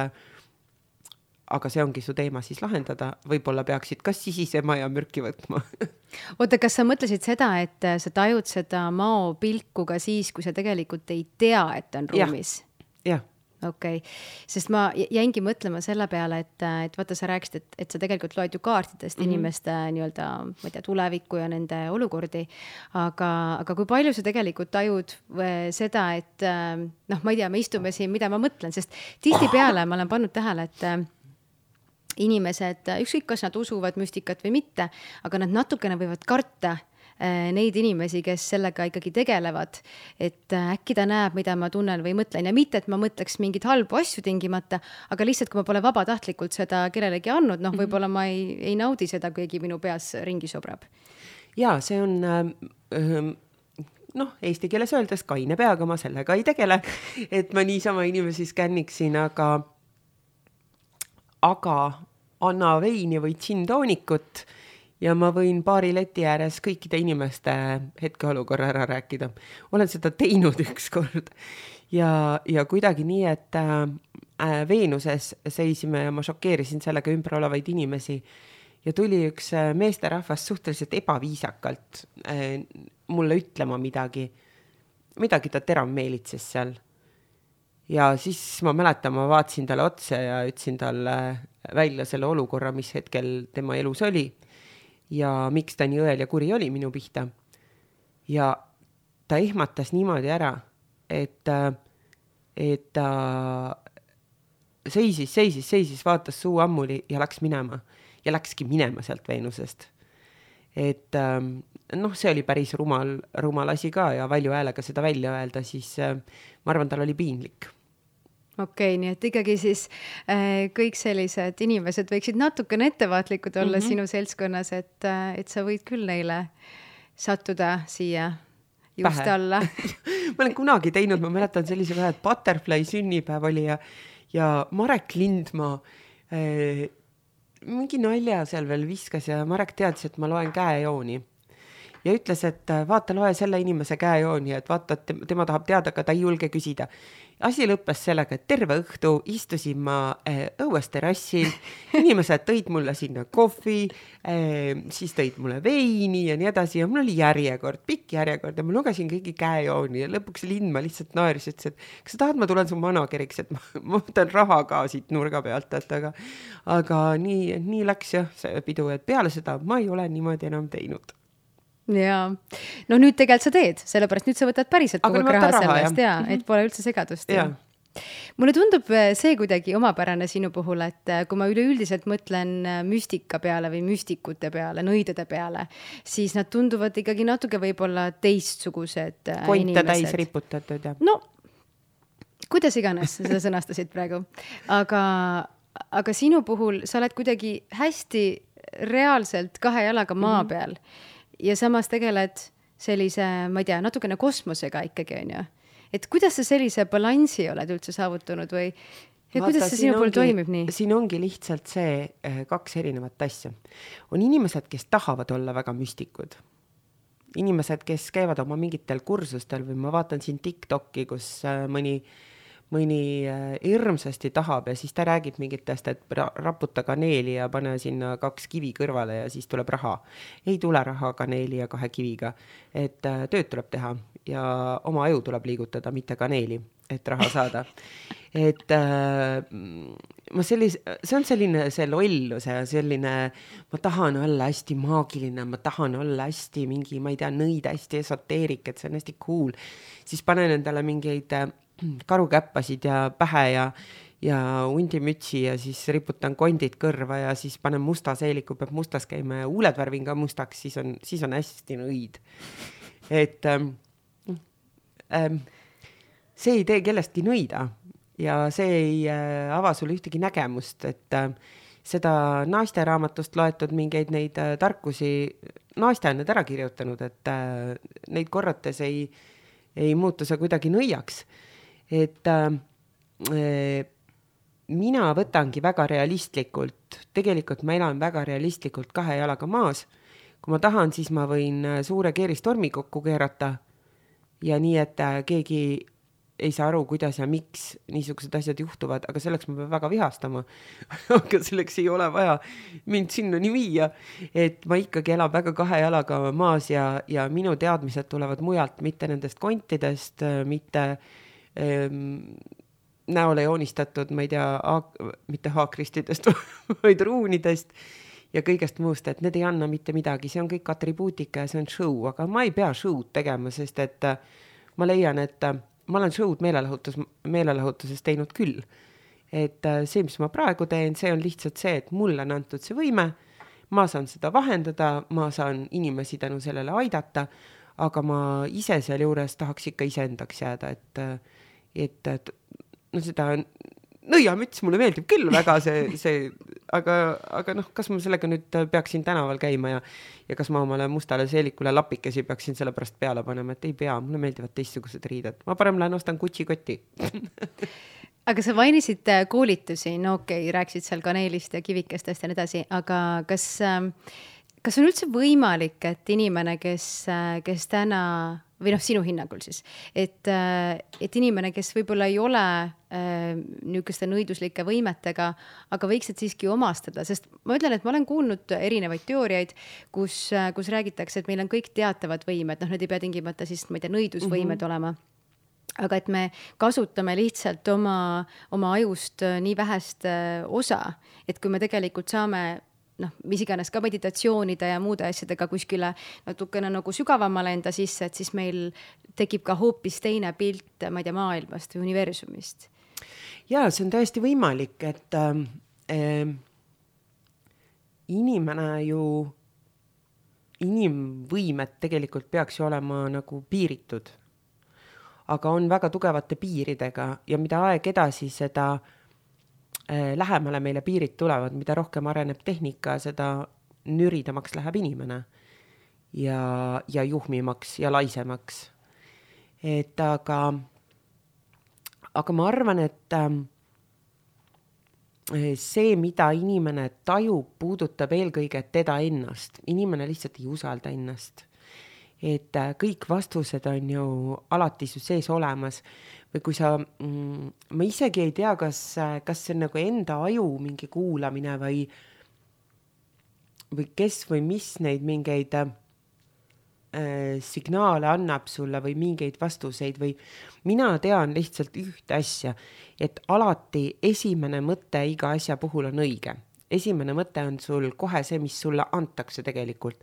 aga see ongi su teema siis lahendada, võib-olla peaksid kas sisisema ja mürki võtma. Oota, kas sa mõtlesid seda, et sa tajud seda maopilku ka siis, kui sa tegelikult ei tea, et on ruumis? Jah. Okei. Sest ma jäingi mõtlema selle peale, et vaata, sa rääkisid, et sa tegelikult loed ju kaartidest inimeste nii-öelda, ma ei tea, tulevikku ja nende olukordi, aga kui palju sa tegelikult tajud seda, et ma ei tea, me istume siin, mida ma mõtlen, sest tihtipeale ma olen pannud tähele, et inimesed, ükskõik kas nad usuvad müstikat või mitte, aga nad natukene võivad karta neid inimesi, kes sellega ikkagi tegelevad, et äkki ta näeb, mida ma tunnen või mõtlen ja mitte, et ma mõtleks mingid halbu asju tingimata, aga lihtsalt, kui ma pole vabatahtlikult seda kellelegi andnud, võib-olla ma ei naudi seda, kuigi minu peas ringi sobrab. Ja see on eesti keeles öeldes kaine peaga, ma sellega ei tegele, et ma niisama inimesi skänniksin, aga anna veini või džinntoonikut ja ma võin baari leti ääres kõikide inimeste hetkeolukorra ära rääkida. Olen seda teinud ükskord ja kuidagi nii, et Veenuses seisime ja ma šokeerisin sellega ümber olevaid inimesi ja tuli üks meesterahvas suhteliselt ebaviisakalt mulle ütlema midagi ta terav meelitses seal. Ja siis ma mäletan, ma vaatasin talle otsa ja ütlesin talle välja selle olukorra, mis hetkel tema elus oli. Ja miks ta nii õel ja kuri oli minu pihta. Ja ta ehmatas niimoodi ära, et ta seisis, vaatas suu ammuli ja läks minema. Ja läkski minema sealt Veenusest. Et see oli päris rumal asi ka ja valju häälega seda välja öelda, siis ma arvan, tal oli piinlik. Okei, nii et ikkagi siis kõik sellised inimesed võiksid natukene ettevaatlikud olla sinu seltskonnas, et sa võid küll neile sattuda siia just alla. Ma olen kunagi teinud, ma mäletan sellise vähe, et Butterfly sünnipäev oli ja Marek Lindmaa mingi nalja seal veel viskas ja Marek teadis, et ma loen käejooni. Ja ütles, et vaata, loe selle inimese käejooni, et vaata, et tema tahab teada, aga ta ei julge küsida. Asi lõppes sellega, et terve õhtu istusin ma õues terrassil, inimesed tõid mulle sinna kohvi, siis tõid mulle veini ja nii edasi ja mul oli järjekord, pikk järjekord ja ma lugesin kõigi käejooni ja lõpuks Lindmaa lihtsalt naeris, ütles, et kas sa tahad, ma tulen su manageriks, et ma võtan raha ka siit nurga pealt, et aga nii läks jah see pidu, et peale seda ma ei ole niimoodi enam teinud. Jaa, no nüüd tegelikult sa teed, sellepärast nüüd sa võtad päriselt kogu raha sellest ja et pole üldse segadust. Mulle tundub see kuidagi omapärane sinu puhul, et kui ma üleüldiselt mõtlen müstika peale või müstikute peale, nõidade peale, siis nad tunduvad ikkagi natuke võib-olla teistsugused Konte inimesed. täis riputatud ja. No, kuidas iganes seda sõnastasid praegu. Aga sinu puhul sa oled kuidagi hästi reaalselt 2 jalaga maa peal. Ja samas tegeled sellise, ma ei tea, natukene kosmosega ikkagi on ju. Et kuidas sa sellise balansi oled üldse saavutanud või ja kuidas see sinu puhul toimib nii? Siin ongi lihtsalt see 2 erinevat asja. On inimesed, kes tahavad olla väga müstikud. Inimesed, kes käivad oma mingitel kursustel või ma vaatan siin TikToki, kus mõni hirmsasti tahab ja siis ta räägib mingitest, et raputa kaneeli ja pane sinna 2 kivi kõrvale ja siis tuleb raha. Ei tule raha kaneeli ja 2 kiviga, et tööd tuleb teha ja oma aju tuleb liigutada, mitte kaneeli, et raha saada. Et see on selline see lollus ja selline, ma tahan olla hästi maagiline, ma tahan olla hästi mingi, ma ei tea, nõid hästi esoteerik, et see on hästi cool. Siis panen endale mingeid karukäppasid ja pähe ja hundimütsi ja siis riputan kondid kõrva ja siis panen musta seeliku, peab mustas käima ja huuled värvin ka mustaks, siis on hästi nõid. Et see ei tee kellestki nõida ja see ei ava sulle ühtegi nägemust, et seda naisteraamatust loetud mingeid neid tarkusi, naiste on need ära kirjutanud, et neid korrates ei muutu see kuidagi nõiaks. Et mina võtangi väga realistlikult, tegelikult ma elan väga realistlikult 2 jalaga maas. Kui ma tahan, siis ma võin suure keeristormi kokku keerata ja nii, et keegi ei saa aru, kuidas ja miks niisugused asjad juhtuvad, aga selleks ma pean väga vihastama. Aga selleks ei ole vaja mind sinnani viia, et ma ikkagi elan väga 2 jalaga maas ja minu teadmised tulevad mujalt, mitte nendest kontidest, mitte näole joonistatud, ma ei tea, mitte haakristidest, vaid ruunidest ja kõigest muust, et need ei anna mitte midagi, see on kõik atribuutika ja see on show, aga ma ei pea show'd tegema, sest et ma leian, et ma olen show'd meelelahutuses teinud küll. Et see, mis ma praegu teen, see on lihtsalt see, et mulle on antud see võime, ma saan seda vahendada, ma saan inimesi tänu sellele aidata, aga ma ise seal juures tahaks ikka iseendaks jääda, et no seda nõiamüts mulle meeldib küll väga aga noh, kas ma sellega nüüd peaksin tänaval käima ja kas ma omale mustale seelikule lapikesi peaksin selle pärast peale panema, et ei pea, mulle meeldivad teistsugused riided. Ma parem lähen ostan Gucci-kotti. Aga sa mainisid koolitusi, no okei, rääksid seal kaneelist ja kivikestest ja nii edasi, aga kas on üldse võimalik, et inimene, kes täna või noh, sinu hinnangul siis, et inimene, kes võib-olla ei ole niisuguste nõiduslike võimetega, aga võiksid siiski omastada, sest ma ütlen, et ma olen kuulnud erinevaid teooriaid, kus räägitakse, et meil on kõik teatavad võimed, noh, need ei pea tingimata siis, ma ei tea, nõidusvõimed olema, aga et me kasutame lihtsalt oma ajust nii vähest osa, et kui me tegelikult saame noh, mis iganes ka meditatsioonide ja muude asjadega kuskile natukene nagu sügavamale enda sisse, et siis meil tekib ka hoopis teine pilt, ma ei tea, maailmast või universumist. Jaa, see on täiesti võimalik, et inimvõimed tegelikult peaks ju olema nagu piiritud, aga on väga tugevate piiridega ja mida aeg edasi, seda lähemale meile piirid tulevad, mida rohkem areneb tehnika, seda nüridamaks läheb inimene ja juhmimaks ja laisemaks. Et aga ma arvan, et see, mida inimene tajub, puudutab eelkõige teda ennast. Inimene lihtsalt ei usalda ennast. Et kõik vastused on ju alati su sees olemas. Või kui sa, ma isegi ei tea, kas see on nagu enda aju mingi kuulamine või kes või mis neid mingeid signaale annab sulle või mingeid vastuseid või mina tean lihtsalt ühte asja, et alati esimene mõte iga asja puhul on õige. Esimene mõte on sul kohe see, mis sulle antakse tegelikult.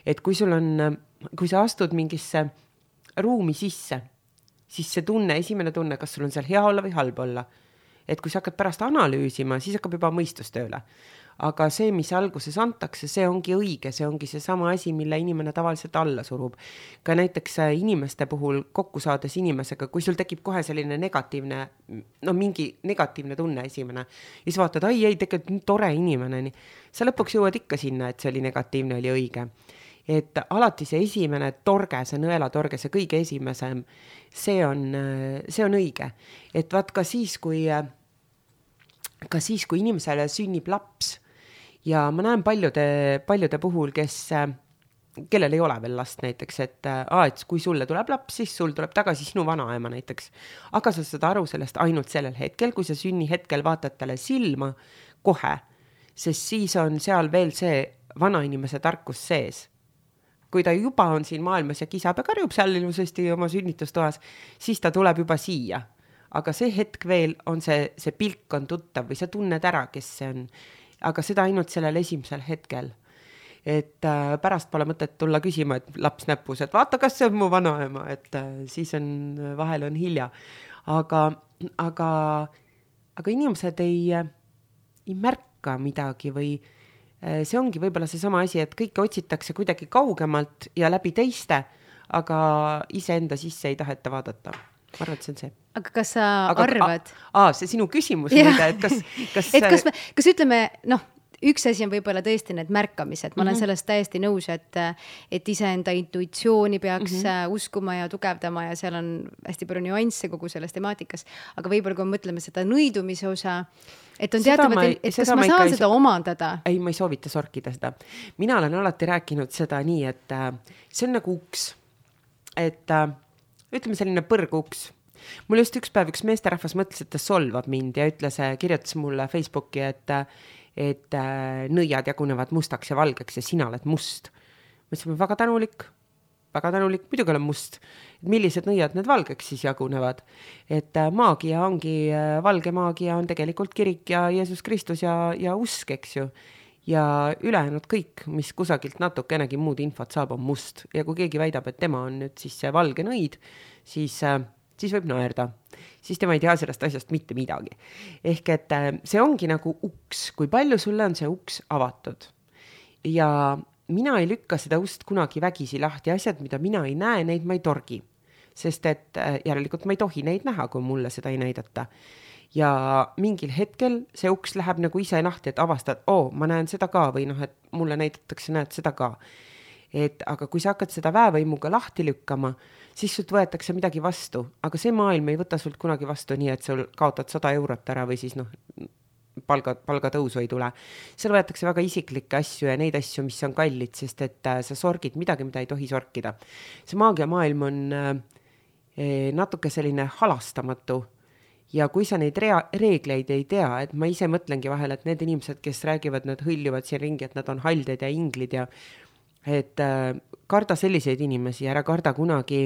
Et kui sa astud mingisse ruumi sisse, siis see tunne, esimene tunne, kas sul on seal hea olla või halb olla. Et kui sa hakkad pärast analüüsima, siis hakkab juba mõistus tööle. Aga see, mis alguses antakse, see ongi õige, see ongi see sama asi, mille inimene tavaliselt alla surub. Ka näiteks inimeste puhul kokku saades inimesega, kui sul tekib kohe selline negatiivne, mingi negatiivne tunne esimene, ja siis vaatad, tegelikult nii tore inimene, nii. Sa lõpuks jõuad ikka sinna, et see oli negatiivne, oli õige. Et alati see esimene torge, see nõelatorge, see kõige esimesem, see on õige. Et vaat ka siis, kui inimesele sünnib laps, ja ma näen paljude puhul, kellel ei ole veel last näiteks, et kui sulle tuleb laps, siis sul tuleb tagasi sinu vanaema näiteks. Aga sa saad aru sellest ainult sellel hetkel, kui sa sünni hetkel vaatad talle silma kohe, sest siis on seal veel see vanainimese tarkus sees. Kui ta juba on siin maailmas ja kisab ja karjub seal ilusasti oma sünnitustoas, siis ta tuleb juba siia. Aga see hetk veel on see pilk on tuttav või sa tunned ära, kes see on. Aga seda ainult sellel esimesel hetkel. Et pärast pole mõtet tulla küsima, et laps näpus, et vaata, kas see on mu vanaema, et siis vahel on hilja. Aga inimesed ei märka midagi või see ongi võib-olla see sama asi, et kõike otsitakse kuidagi kaugemalt ja läbi teiste, aga iseenda sisse ei taheta vaadata. Ma arvan, et see on see. Aga kas sa arvad? See sinu küsimus, et kas ütleme, üks asi on võib-olla tõesti need märkamised. Ma olen sellest täiesti nõus, et iseenda intuitsiooni peaks uskuma ja tugevdama ja seal on hästi palju nüansse kogu selles temaatikas. Aga võib-olla kui mõtleme seda nõidumise osa, et on teatavalt, et kas ma saan seda omandada? Ei, ma ei soovita sorkida seda. Mina olen alati rääkinud seda nii, et see on nagu uks. Et ütleme selline põrguks. Mul just üks päev üks meesterahvas mõtles, et ta solvab mind ja kirjutas mulle Facebooki, et nõiad jagunevad mustaks ja valgeks ja sina oled must. Ma ütlesin, väga tänulik, muidugi olen must. Millised nõiad need valgeks siis jagunevad? Et maagia ongi, valge maagia on tegelikult kirik ja Jeesus Kristus ja usk, eks ju. Ja ülejäänud kõik, mis kusagilt natukenegi muud infot saab, on must. Ja kui keegi väidab, et tema on nüüd siis see valge nõid, siis võib naerda. Siis tema ei tea sellest asjast mitte midagi. Ehk et see ongi nagu uks, kui palju sulle on see uks avatud. Ja mina ei lükka seda ust kunagi vägisi lahti, asjad, mida mina ei näe, neid ma ei torgi. Sest et järelikult ma ei tohi neid näha, kui mulle seda ei näidata. Ja mingil hetkel see uks läheb nagu ise lahti, et avastad, ma näen seda ka või et mulle näidatakse, näed seda ka. Aga kui sa hakkad seda väevõimuga lahti lükkama, siis sult võetakse midagi vastu, aga see maailm ei võta sult kunagi vastu nii, et sul kaotad 100 eurot ära või siis palgatõusu ei tule. Seal võetakse väga isiklikke asju ja neid asju, mis on kallid, sest et sa sorgid midagi, mida ei tohi sorkida. See maagia maailm on natuke selline halastamatu ja kui sa neid reegleid ei tea, et ma ise mõtlengi vahel, et need inimesed, kes räägivad, nad hõljuvad siin ringi, et nad on halded ja inglid ja et karda selliseid inimesi, ära karda kunagi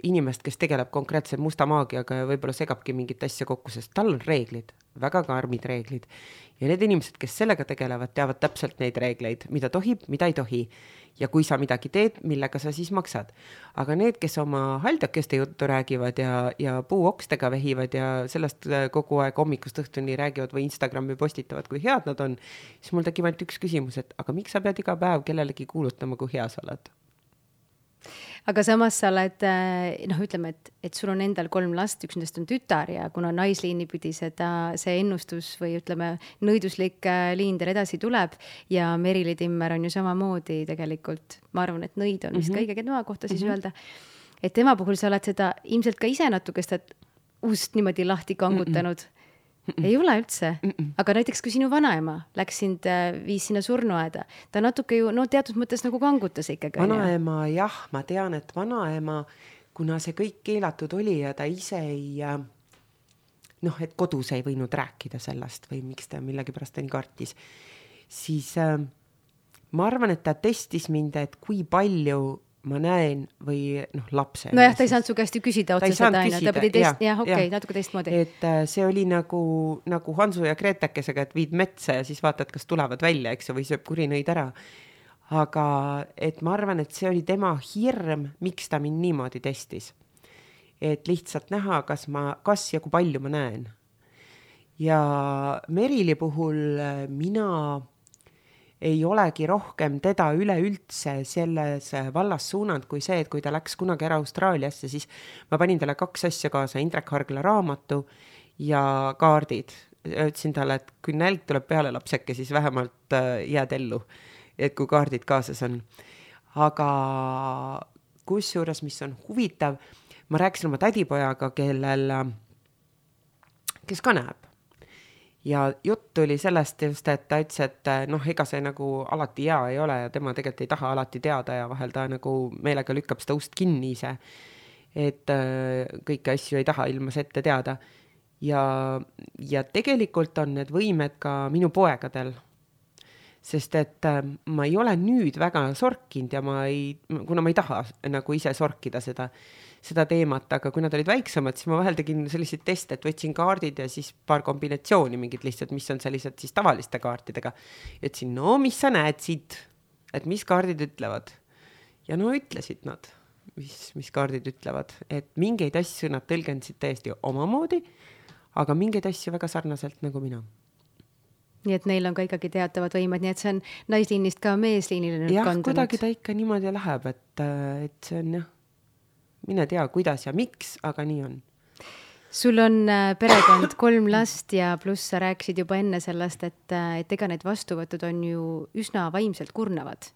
inimest, kes tegeleb konkreetselt musta maagiaga ja võib-olla segabki mingit asja kokku, sest tal on reeglid, väga karmid reeglid. Ja need inimesed, kes sellega tegelevad, teavad täpselt neid reegleid, mida tohib, mida ei tohi. Ja kui sa midagi teed, millega sa siis maksad. Aga need, kes oma haldjakeste juttu räägivad ja puuokstega vehivad ja sellest kogu aeg hommikust õhtuni räägivad või Instagrami postitavad, kui head nad on, siis mul tekib ainult üks küsimus, et aga miks sa pead iga päev kellelegi kuulutama, kui hea sa oled? Aga samas sa oled, ütleme, et sul on endal 3 last, üks nendest on tütar ja kuna naisliini pidi see ennustus või ütleme, nõiduslik liin teil edasi tuleb ja Merili Timmer on ju samamoodi tegelikult, ma arvan, et nõid on vist kõige tema kohta siis öelda, et tema puhul sa oled seda ilmselt ka ise natuke seda ust niimoodi lahti kangutanud. Ei ole üldse? Aga näiteks kui sinu vanaema läks sind, viis sinna surnuaeda, ta natuke ju, no teatud mõttes nagu kangutas ikkagi. Vanaema, jah, ma tean, et vanaema, kuna see kõik keelatud oli ja ta ise ei, et kodus ei võinud rääkida sellest või miks ta millegi pärast ta nii kartis, siis ma arvan, et ta testis mind, et kui palju ma näen või lapse. Nojah, ta ei saanud su käest ju küsida otseselt aina, ta pidi natuke teistmoodi. Et see oli nagu Hansu ja Gretekesega, et viid metsa ja siis vaatad, kas tulevad välja, eks ju, või sööb kurinõid ära. Aga et ma arvan, et see oli tema hirm, miks ta mind niimoodi testis. Et lihtsalt näha, kas ja kui palju ma näen. Ja Merili puhul mina ei olegi rohkem teda üleüldse selles vallas suunanud kui see, et kui ta läks kunagi ära Austraaliasse, siis ma panin talle 2 asja kaasa, Indrek Hargla raamatu ja kaardid. Ütlesin talle, et kui nälg tuleb peale lapseke, siis vähemalt jääd ellu, et kui kaardid kaasas on. Aga kusjuures, mis on huvitav, ma rääkisin oma tädipojaga, kes ka näeb. Ja jutt oli sellest just, et ta ütles, et ega see nagu alati hea ei ole ja tema tegelikult ei taha alati teada ja vahel ta nagu meelega lükkab seda ust kinni ise, et kõiki asju ei taha ilmas ette teada. Ja tegelikult on need võimed ka minu poegadel, sest et ma ei ole nüüd väga sorkinud ja kuna ma ei taha nagu ise sorkida seda teemat, aga kui nad olid väiksemad, siis ma vahel tegin selliseid teste, et võtsin kaardid ja siis paar kombinatsiooni mingid lihtsalt, mis on sellised siis tavaliste kaartidega. Ütlesin, mis sa näed siit, et mis kaardid ütlevad. Ja ütlesid nad, mis kaardid ütlevad, et mingeid asju nad tõlgendasid täiesti omamoodi, aga mingeid asju väga sarnaselt nagu mina. Nii et neil on ka ikkagi teatavad võimed, nii et see on naisliinist ka meesliinile nüüd kandunud. Jah, kuidagi ta ikka niimoodi läheb, et see on mine tea, kuidas ja miks, aga nii on. Sul on perekond 3 last ja pluss sa rääkisid juba enne sellest, et ega need vastuvõtud on ju üsna vaimselt kurnavad.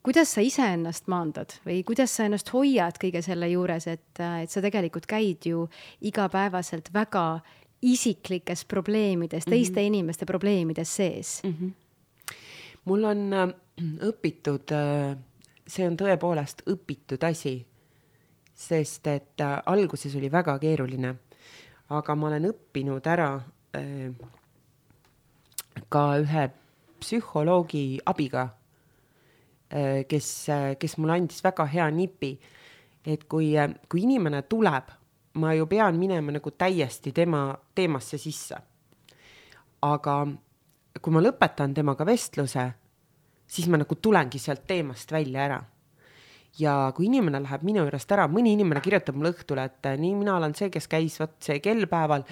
Kuidas sa ise ennast maandad või kuidas sa ennast hoiad kõige selle juures, et sa tegelikult käid ju igapäevaselt väga isiklikes probleemides, teiste inimeste probleemides sees? Mul on õpitud, see on tõepoolest õpitud asi, sest et alguses oli väga keeruline, aga ma olen õppinud ära ka ühe psühholoogi abiga, kes mulle andis väga hea nipi, et kui inimene tuleb, ma ju pean minema nagu täiesti tema teemasse sisse. Aga kui ma lõpetan temaga vestluse, siis ma nagu tulengi sealt teemast välja ära. Ja kui inimene läheb minu juurest ära, mõni inimene kirjutab mulle õhtule, et nii mina olen see, kes käis see kellpäeval,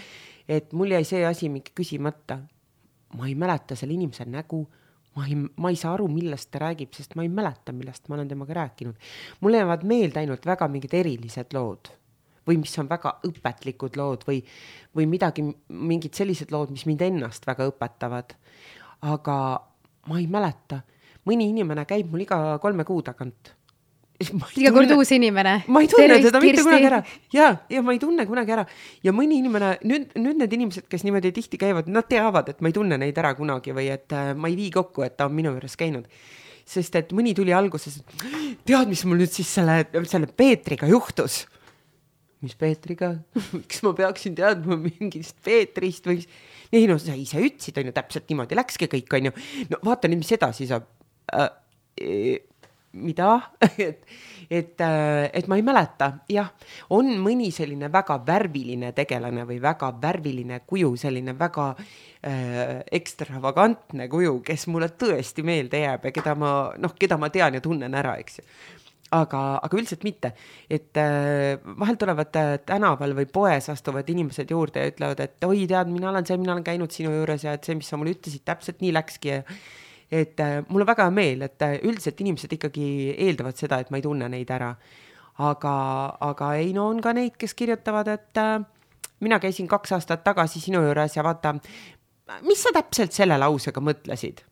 et mul jäi see asi mingi küsimata. Ma ei mäleta selle inimese nägu, ma ei saa aru, millest ta räägib, sest ma ei mäleta, millest ma olen temaga rääkinud. Mul jäävad meelde ainult väga mingid erilised lood või mis on väga õpetlikud lood või mingid sellised lood, mis mind ennast väga õpetavad. Aga ma ei mäleta. Mõni inimene käib mul iga 3 kuu tagant. Iga kord uus inimene. Ma ei tunne teda mitte kunagi ära. Ja ma ei tunne kunagi ära. Ja mõni inimene, nüüd need inimesed, kes niimoodi tihti käivad, nad teavad, et ma ei tunne neid ära kunagi või et ma ei vii kokku, et ta on minu juures käinud. Sest et mõni tuli alguses, tead, mis mul nüüd siis selle Peetriga juhtus? Mis Peetriga? Miks ma peaksin teadma mingist Peetrist või... Ei, sa ise ütlesid, on ju, täpselt niimoodi läkski kõik, on ju. No vaata nüüd, mis edasi saab. Mida? et ma ei mäleta. Jah, on mõni selline väga värviline tegelane või väga värviline kuju, selline väga ekstravagantne kuju, kes mulle tõesti meelde jääb ja keda ma tean ja tunnen ära, eks ju. Aga üldiselt mitte. Et vahel tulevad tänaval või poes astuvad inimesed juurde ja ütlevad, et oi, tead, mina olen käinud sinu juures ja et see, mis sa mulle ütlesid, täpselt nii läkski ja et mul on väga meel, et üldiselt inimesed ikkagi eeldavad seda, et ma ei tunne neid ära. Aga ei, on ka neid, kes kirjutavad, et mina käisin 2 aastat tagasi sinu juures ja vaata, mis sa täpselt selle lausega mõtlesid?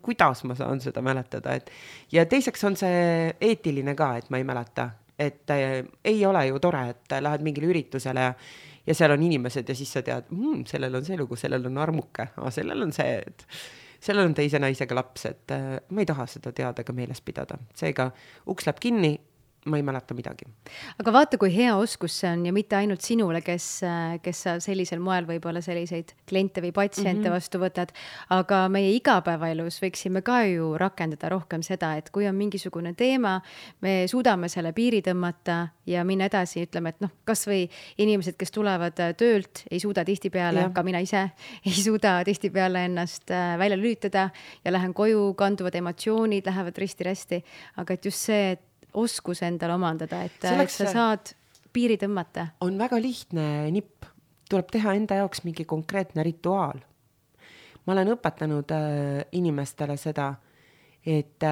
Kuidas ma saan seda mäletada? Ja teiseks on see eetiline ka, et ma ei mäleta. Et ei ole ju tore, et lähed mingile üritusele ja seal on inimesed ja siis sa tead, sellel on see lugu, sellel on armuke, sellel on see, et sellel on teise naisega laps, et ma ei taha seda teada ega meeles pidada. Seega uks läheb kinni, ma ei mäleta midagi. Aga vaata, kui hea oskus see on ja mitte ainult sinule, kes sa sellisel moel võib-olla selliseid kliente või patsiente vastu võtad, aga meie igapäevaelus võiksime ka ju rakendada rohkem seda, et kui on mingisugune teema, me suudame selle piiri tõmmata ja minna edasi, ütleme, et kas või inimesed, kes tulevad töölt, ei suuda tihtipeale, ka mina ise, ei suuda tihtipeale ennast välja lülitada ja lähen koju, kanduvad emotsioonid, lähevad risti-rästi, aga et just see, et oskus endale omandada, et sa saad piiri tõmmata. On väga lihtne nipp. Tuleb teha enda jaoks mingi konkreetne rituaal. Ma olen õpetanud inimestele seda, et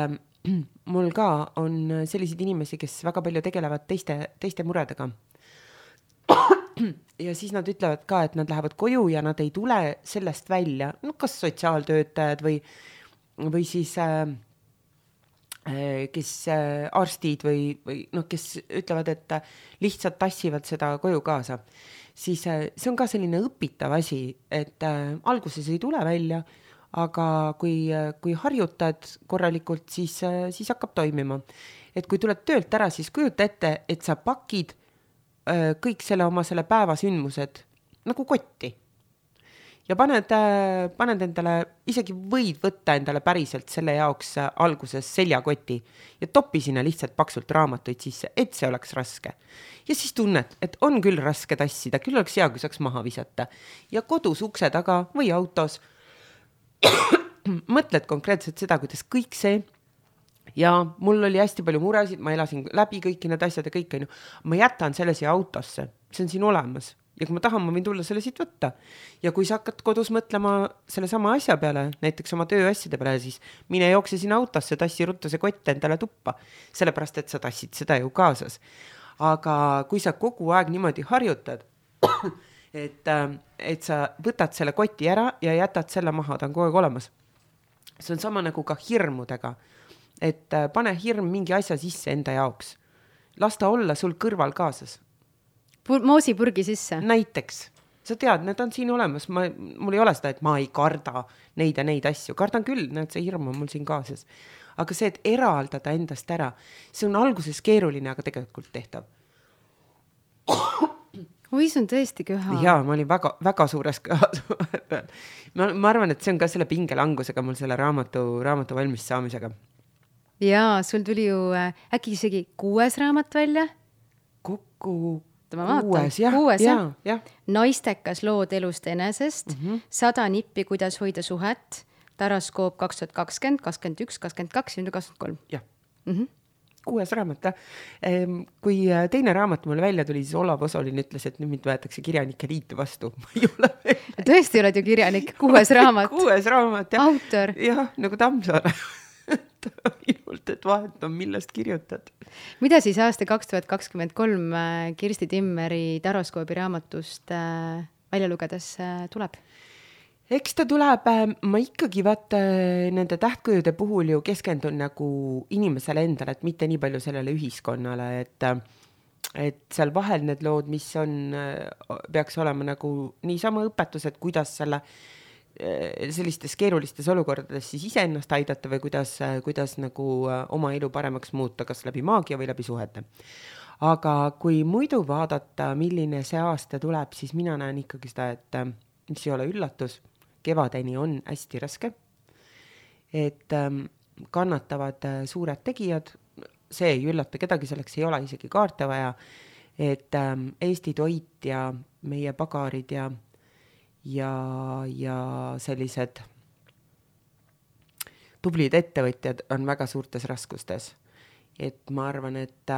mul ka on selliseid inimesi, kes väga palju tegelevad teiste muredega. Ja siis nad ütlevad ka, et nad lähevad koju ja nad ei tule sellest välja. Kas sotsiaaltöötajad või siis kes arstid või kes ütlevad, et lihtsalt tassivad seda koju kaasa, siis see on ka selline õpitav asi, et alguses ei tule välja, aga kui harjutad korralikult, siis hakkab toimima. Et kui tuled töölt ära, siis kujuta ette, et sa pakid kõik oma selle päeva sündmused nagu kotti. Ja paned endale, isegi võid võtta endale päriselt selle jaoks alguses seljakoti ja topi sinna lihtsalt paksult raamatuid sisse, et see oleks raske. Ja siis tunned, et on küll raske tassida, küll oleks hea, kui saaks maha visata. Ja kodus ukse taga või autos mõtled konkreetselt seda, kuidas kõik see, ja mul oli hästi palju muresid, ma elasin läbi kõiki need asjad ja kõik, ma jätan selle siia autosse, see on siin olemas. Ja kui ma tahan, ma võin tulla selle siit võtta. Ja kui sa hakkad kodus mõtlema selle sama asja peale, näiteks oma tööasjade peale, siis mine jookse sinna autosse, tassi ruttu see kott endale tuppa. Sellepärast, et sa tassid seda ju kaasas. Aga kui sa kogu aeg niimoodi harjutad, et sa võtad selle koti ära ja jätad selle maha, ta on kogu aeg olemas. See on sama nagu ka hirmudega. Et pane hirm mingi asja sisse enda jaoks. Lasta olla sul kõrval kaasas. Moosipurgi sisse. Näiteks. Sa tead, need on siin olemas. Mul ei ole seda, et ma ei karda neid ja neid asju. Kardan küll, näed, see hirm on mul siin kaasas. Aga see, et eraldada endast ära, see on alguses keeruline, aga tegelikult tehtav. Oi, see on tõesti köha. Jaa, ma olin väga, väga suures köhas. ma arvan, et see on ka selle pingelangusega mul selle raamatu valmis saamisega. Jaa, sul tuli ju äkki isegi 6 raamat välja? Kokku kuues, jah. Naistekas lood elust enesest, 100 nippi, kuidas hoida suhet, Taraskoop 2020, 21, 22 ja 23. Jah. 6 raamat. Kui teine raamat mulle välja tuli, siis Olav Osolin ütles, et nüüd mind võetakse kirjanike liitu vastu. Ma ei ole veel. Tõesti oled ju kirjanik, 6 raamat. 6 raamat, jah. Autor. Jah, nagu Tammsaare. Minult, et vahet on, millest kirjutad. Mida siis aasta 2023 Kirsti Timmeri Taraskoobi raamatust välja lugedes tuleb? Eks ta tuleb, ma ikkagi nende tähtkujude puhul ju keskendun nagu inimesele endale, et mitte nii palju sellele ühiskonnale, et seal vahel need lood, mis peaks olema nagu niisama õpetus, et kuidas sellistes keerulistes olukordades siis iseennast aidata või kuidas nagu oma elu paremaks muuta, kas läbi maagia või läbi suhete. Aga kui muidu vaadata, milline see aasta tuleb, siis mina näen ikkagi seda, et mis ei ole üllatus, kevadeni on hästi raske, et kannatavad suured tegijad, see ei üllata kedagi, selleks ei ole isegi kaarte vaja, et Eesti toit ja meie pagarid ja sellised tublid ettevõtjad on väga suurtes raskustes. Et ma arvan, et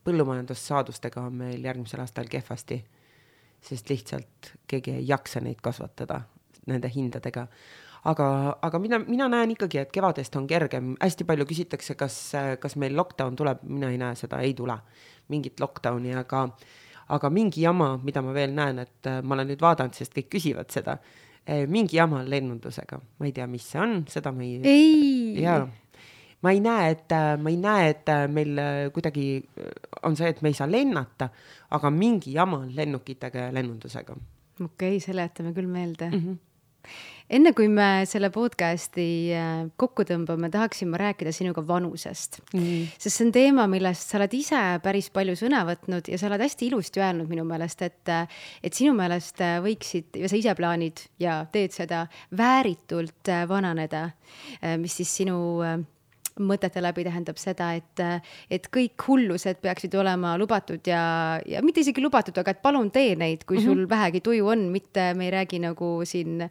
põllumajandussaadustega on meil järgmisel aastal kehvasti, sest lihtsalt keegi ei jaksa neid kasvatada nende hindadega. Aga mina näen ikkagi, et kevadest on kergem. Hästi palju küsitakse, kas meil lockdown tuleb. Mina ei näe seda, ei tule mingit lockdowni, aga mingi jama, mida ma veel näen, et ma olen nüüd vaadanud, sest kõik küsivad seda, mingi jama lennundusega. Ma ei tea, mis see on, seda ma ei... Ei! Jaa. ma ei näe, et meil kuidagi on see, et me ei saa lennata, aga mingi jama on lennukitega ja lennundusega. Okei, seletame küll meelde. Enne kui me selle podcasti kokku tõmbame, tahaksin ma rääkida sinuga vanusest. Sest see on teema, millest sa oled ise päris palju sõna võtnud ja sa oled hästi ilusti öelnud minu meelest, et sinu meelest võiksid, ja sa ise plaanid ja teed seda, vääritult vananeda, mis siis sinu mõtete läbi tähendab seda, et kõik hullused peaksid olema lubatud ja mitte isegi lubatud, aga et palun tee neid, kui sul vähegi tuju on, mitte me ei räägi nagu siin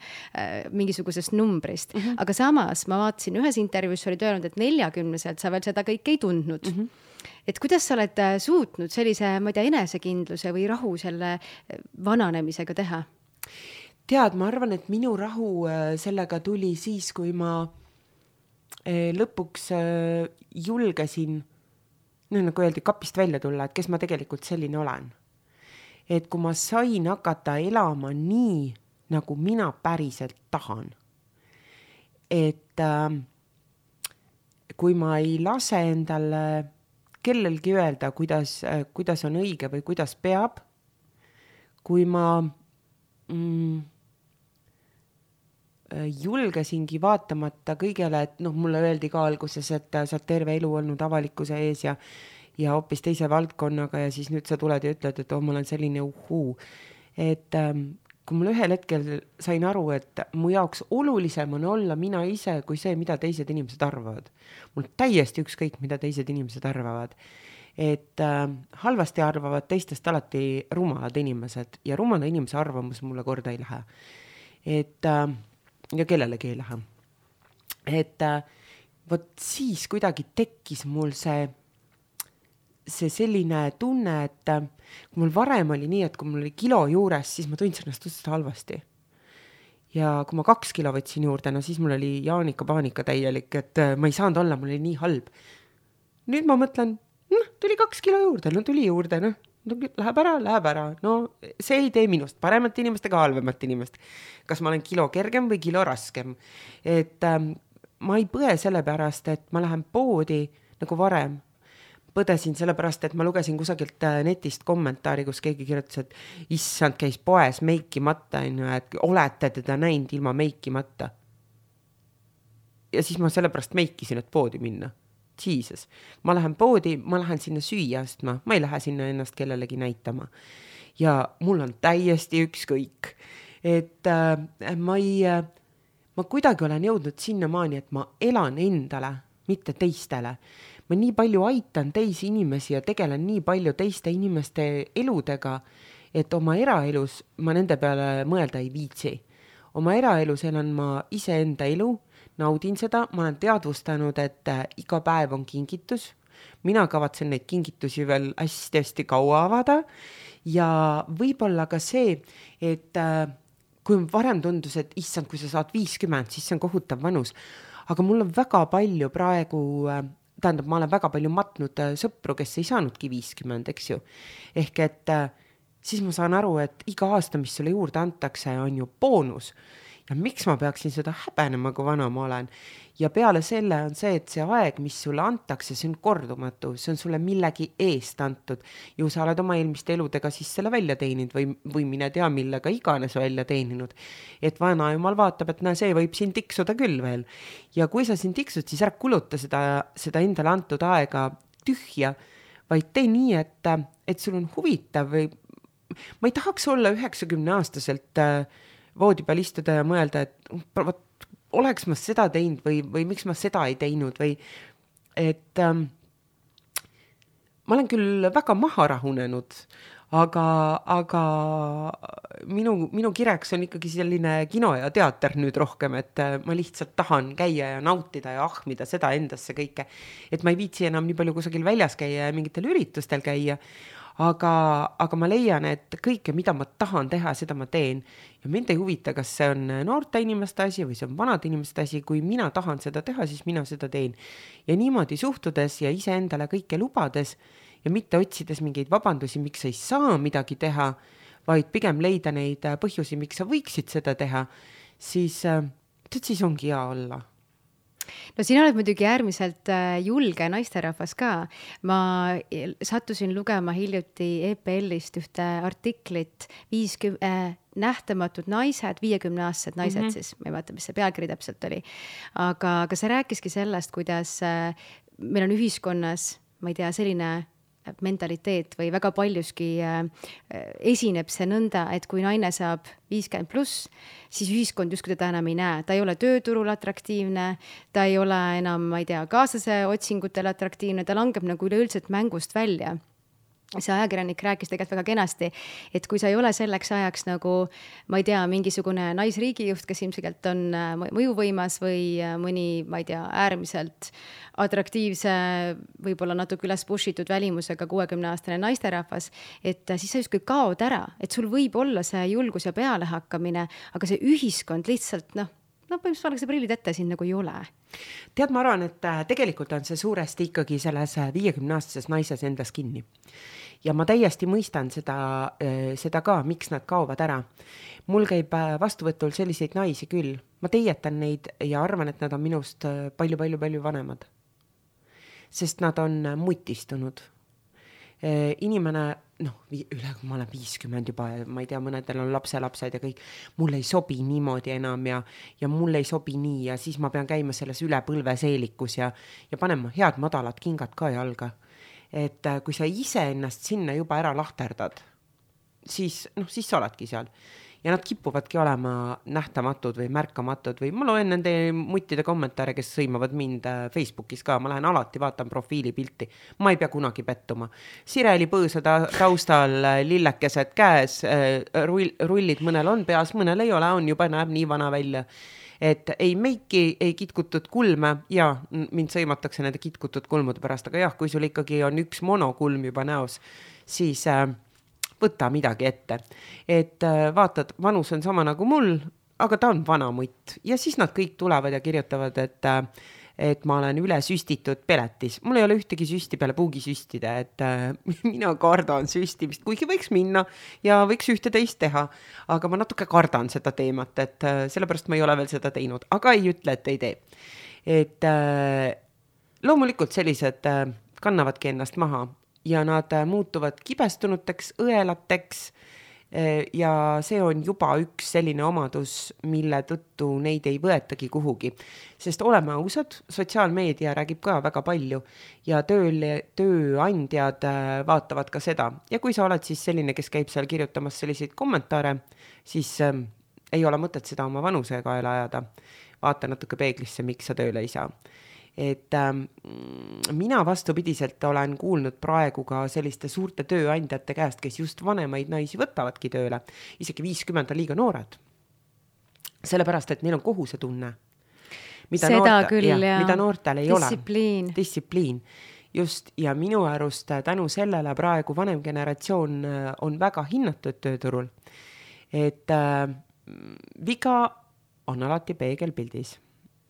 mingisugusest numbrist. Aga samas ma vaatasin ühes intervjuus, sa olid öelnud, et 40-selt sa veel seda kõike ei tundnud. Et kuidas sa oled suutnud sellise, ma ei tea, enesekindluse või rahu selle vananemisega teha? Tead, ma arvan, et minu rahu sellega tuli siis, kui ma lõpuks julgesin, nagu öeldi, kapist välja tulla, et kes ma tegelikult selline olen. Et kui ma sain hakata elama nii, nagu mina päriselt tahan. Et kui ma ei lase endale kellelgi öelda, kuidas on õige või kuidas peab, kui ma julgesingi vaatamata kõigele, et mulle öeldi ka alguses, et sa oled terve elu olnud avalikkuse ees ja hoopis teise valdkonnaga ja siis nüüd sa tuled ja ütled, et ma olen selline uhuu. Et kui mul ühel hetkel sain aru, et mu jaoks olulisem on olla mina ise kui see, mida teised inimesed arvavad. Mul täiesti ükskõik, mida teised inimesed arvavad. Et halvasti arvavad teistest alati rumalad inimesed ja rumala inimese arvamus mulle korda ei lähe. Et ja kellelegi ei lähe. Et vot siis kuidagi tekkis mul see selline tunne, et kui mul varem oli nii, et kui mul oli kilo juures, siis ma tundsin ennast tõesti halvasti. Ja kui ma 2 kilo võtsin juurde, siis mul oli paanika täielik, et ma ei saanud olla, mul oli nii halb. Nüüd ma mõtlen, tuli 2 kilo juurde, tuli juurde, läheb ära. No see ei tee minust paremat inimest ega halvemat inimest. Kas ma olen kilo kergem või kilo raskem. Et ma ei põe selle pärast, et ma lähen poodi nagu varem. Põdesin selle pärast, et ma lugesin kusagilt netist kommentaari, kus keegi kirjutas, et issand, käis poes meikimata, et olete teda näinud ilma meikimata. Ja siis ma selle pärast meikisin, et poodi minna. Jesus. Ma lähen poodi, ma lähen sinna süüa astma, ma ei lähe sinna ennast kellelegi näitama. Ja mul on täiesti ükskõik. Et ma kuidagi olen jõudnud sinnamaani, et ma elan endale, mitte teistele. Ma nii palju aitan teisi inimesi ja tegelen nii palju teiste inimeste eludega, et oma eraelus ma nende peale mõelda ei viitsi. Oma eraelus elan ma iseenda elu, naudin seda, ma olen teadvustanud, et iga päev on kingitus. Mina kavatsen neid kingitusi veel hästi kaua avada ja võib-olla ka see, et kui varem tundus, et issand, kui sa saad 50, siis see on kohutav vanus. Aga mul on väga palju praegu, ma olen väga palju matnud sõpru, kes ei saanudki 50, eks ju. Ehk et siis ma saan aru, et iga aasta, mis sulle juurde antakse, on ju boonus. Ja miks ma peaksin seda häbenema, kui vana ma olen? Ja peale selle on see, et see aeg, mis sulle antakse, see on kordumatu, see on sulle millegi eest antud. Ju sa oled oma eelmiste eludega siis selle välja teeninud või mine tea, millega iganes välja teeninud. Et vana jumal vaatab, et see võib siin tiksuda küll veel. Ja kui sa siin tiksud, siis ära kuluta seda endale antud aega tühja, vaid tee nii, et sul on huvitav või ma ei tahaks olla 90-aastaselt voodi peal istuda ja mõelda, et oleks ma seda teinud või miks ma seda ei teinud või et ma olen küll väga maha rahunenud, aga minu kireks on ikkagi selline kino ja teater nüüd rohkem, et ma lihtsalt tahan käia ja nautida ja ahmida seda endasse kõike, et ma ei viitsi enam nii palju kusagil väljas käia ja mingitel üritustel käia, aga ma leian, et kõike, mida ma tahan teha, seda ma teen. Ja mind ei huvita, kas see on noorte inimeste asi või see on vanade inimeste asi. Kui mina tahan seda teha, siis mina seda teen. Ja niimoodi suhtudes ja iseendale kõike lubades ja mitte otsides mingeid vabandusi, miks ei saa midagi teha, vaid pigem leida neid põhjusi, miks sa võiksid seda teha, siis ongi hea olla. No sina oled muidugi äärmiselt julge naisterahvas ka. Ma sattusin lugema hiljuti EPL-ist ühte artiklit 50 nähtamatud naised, 50-aastased naised siis, ma ei vaata, mis see pealkiri täpselt oli. Aga see rääkiski sellest, kuidas meil on ühiskonnas, ma ei tea, selline mentaliteet või väga paljuski esineb see nõnda, et kui naine saab 50+, siis ühiskond justkui teda enam ei näe. Ta ei ole tööturul atraktiivne, ta ei ole enam, ma ei tea, kaaslase otsingutel atraktiivne, ta langeb nagu üleüldiselt mängust välja. See ajakirjanik rääkis tegelikult väga kenasti, et kui sa ei ole selleks ajaks nagu, ma ei tea, mingisugune naisriigijuht, kes ilmselt on mõjuvõimas või mõni, ma ei tea, äärmiselt atraktiivse, võib-olla natuke üles pushitud välimusega 60-aastane naisterahvas, et siis sa justkui kaod ära, et sul võib olla see julgus ja pealehakkamine, aga see ühiskond lihtsalt, põhimõtteliselt valge prillid ette siin nagu ei ole. Tead, ma arvan, et tegelikult on see suuresti ikkagi selles 50-aastases naises endas kinni. Ja ma täiesti mõistan seda ka, miks nad kaovad ära. Mul käib vastuvõtul selliseid naisi küll. Ma teietan neid ja arvan, et nad on minust palju vanemad. Sest nad on mutistunud. Inimene, ma olen 50 juba, ma ei tea, mõnedel on lapselapsed ja kõik, mul ei sobi niimoodi enam ja mul ei sobi nii ja siis ma pean käima selles üle põlve seelikus ja panema head madalad kingad ka jalga. Et kui sa ise ennast sinna juba ära lahterdad, siis sa oledki seal. Ja nad kipuvadki olema nähtamatud või märkamatud või ma loen nende muttide kommentaare, kes sõimavad mind Facebookis ka. Ma lähen alati, vaatan profiilipilti. Ma ei pea kunagi pettuma. Sireli põõsa taustal lillekesed käes, rullid mõnel on peas, mõnel ei ole, on juba näeb nii vana välja. Et ei meiki, ei kitkutud kulme ja mind sõimatakse nende kitkutud kulmude pärast, aga jah, kui sul ikkagi on üks monokulm juba näos, siis võta midagi ette. Et vaatad, vanus on sama nagu mul, aga ta on vana mutt. Ja siis nad kõik tulevad ja kirjutavad, et ma olen üle süstitud peletis. Mul ei ole ühtegi süsti peale puugi süstida, et mina kardan süstimist, kuigi võiks minna ja võiks ühte teist teha. Aga ma natuke kardan seda teemat, et sellepärast ma ei ole veel seda teinud, aga ei ütle, et ei tee. Et loomulikult sellised kannavadki ennast maha. Ja nad muutuvad kibestunuteks, õelateks ja see on juba üks selline omadus, mille tõttu neid ei võetagi kuhugi. Sest oleme ausad, sotsiaalmeedia räägib ka väga palju ja tööandjad vaatavad ka seda. Ja kui sa oled siis selline, kes käib seal kirjutamas selliseid kommentaare, siis ei ole mõtet seda oma vanuse kaela ajada. Vaata natuke peeglisse, miks sa tööle ei saa. Et mina vastupidiselt olen kuulnud praegu ka selliste suurte tööandjate käest, kes just vanemaid naisi võtavadki tööle. Isegi 50 on liiga noored. Sellepärast, et neil on kohusetunne. Mida noortel ei ole. Distsipliin. Just, ja minu arust tänu sellele praegu vanem generatsioon on väga hinnatud tööturul. Et viga on alati peegelpildis.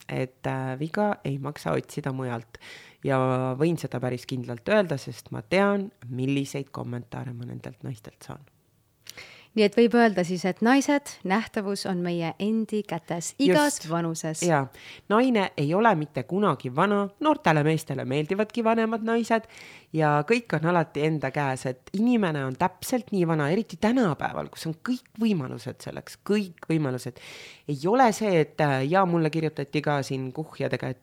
Et viga ei maksa otsida mujalt ja võin seda päris kindlalt öelda, sest ma tean, milliseid kommentaare ma nendelt naistelt saan. Nii et võib öelda siis, et naised, nähtavus on meie endi kätes igas vanuses. Ja, naine ei ole mitte kunagi vana, noortele meestele meeldivadki vanemad naised ja kõik on alati enda käes, et inimene on täpselt nii vana, eriti tänapäeval, kus on kõik võimalused selleks, kõik võimalused. Ei ole see, et mulle kirjutati ka siin kuhjadega,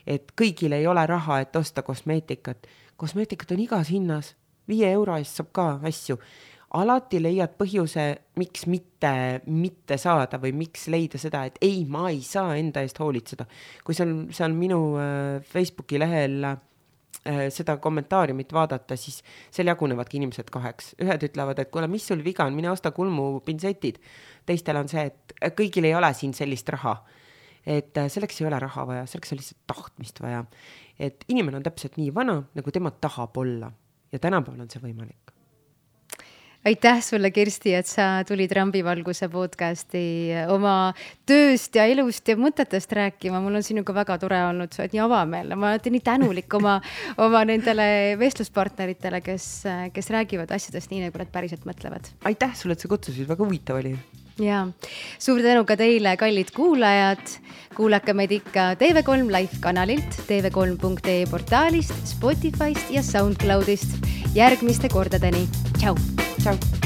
et kõigil ei ole raha, et osta kosmeetikat. Kosmeetikat on igas hinnas, 5 euro eest saab ka asju. Alati leiad põhjuse, miks mitte saada või miks leida seda, et ei, ma ei saa enda eest hoolitseda. Kui seal minu Facebooki lehel seda kommentaariumit vaadata, siis seal jagunevadki inimesed 2. Ühed ütlevad, et kuule, mis sul viga on, mine osta kulmupinsetid. Teistel on see, et kõigil ei ole siin sellist raha. Et selleks ei ole raha vaja, selleks on lihtsalt tahtmist vaja. Et inimene on täpselt nii vana, nagu tema tahab olla. Ja tänapäeval on see võimalik. Aitäh sulle, Kirsti, et sa tulid Rambivalguse podcasti oma tööst ja elust ja mõtetest rääkima. Mul on sinuga väga tore olnud, sa oled nii avameelne. Ma olen nii tänulik oma nendele vestluspartneritele, kes räägivad asjadest nii, nagu nad päriselt mõtlevad. Aitäh sulle, et sa kutsusid, väga huvitav oli. Ja suur tänu ka teile, kallid kuulajad. Kuulake meid ikka TV3 Live kanalilt, tv3.ee portaalist, Spotify'st ja SoundCloud'ist. Järgmiste kordadeni. Tšau! Tšau!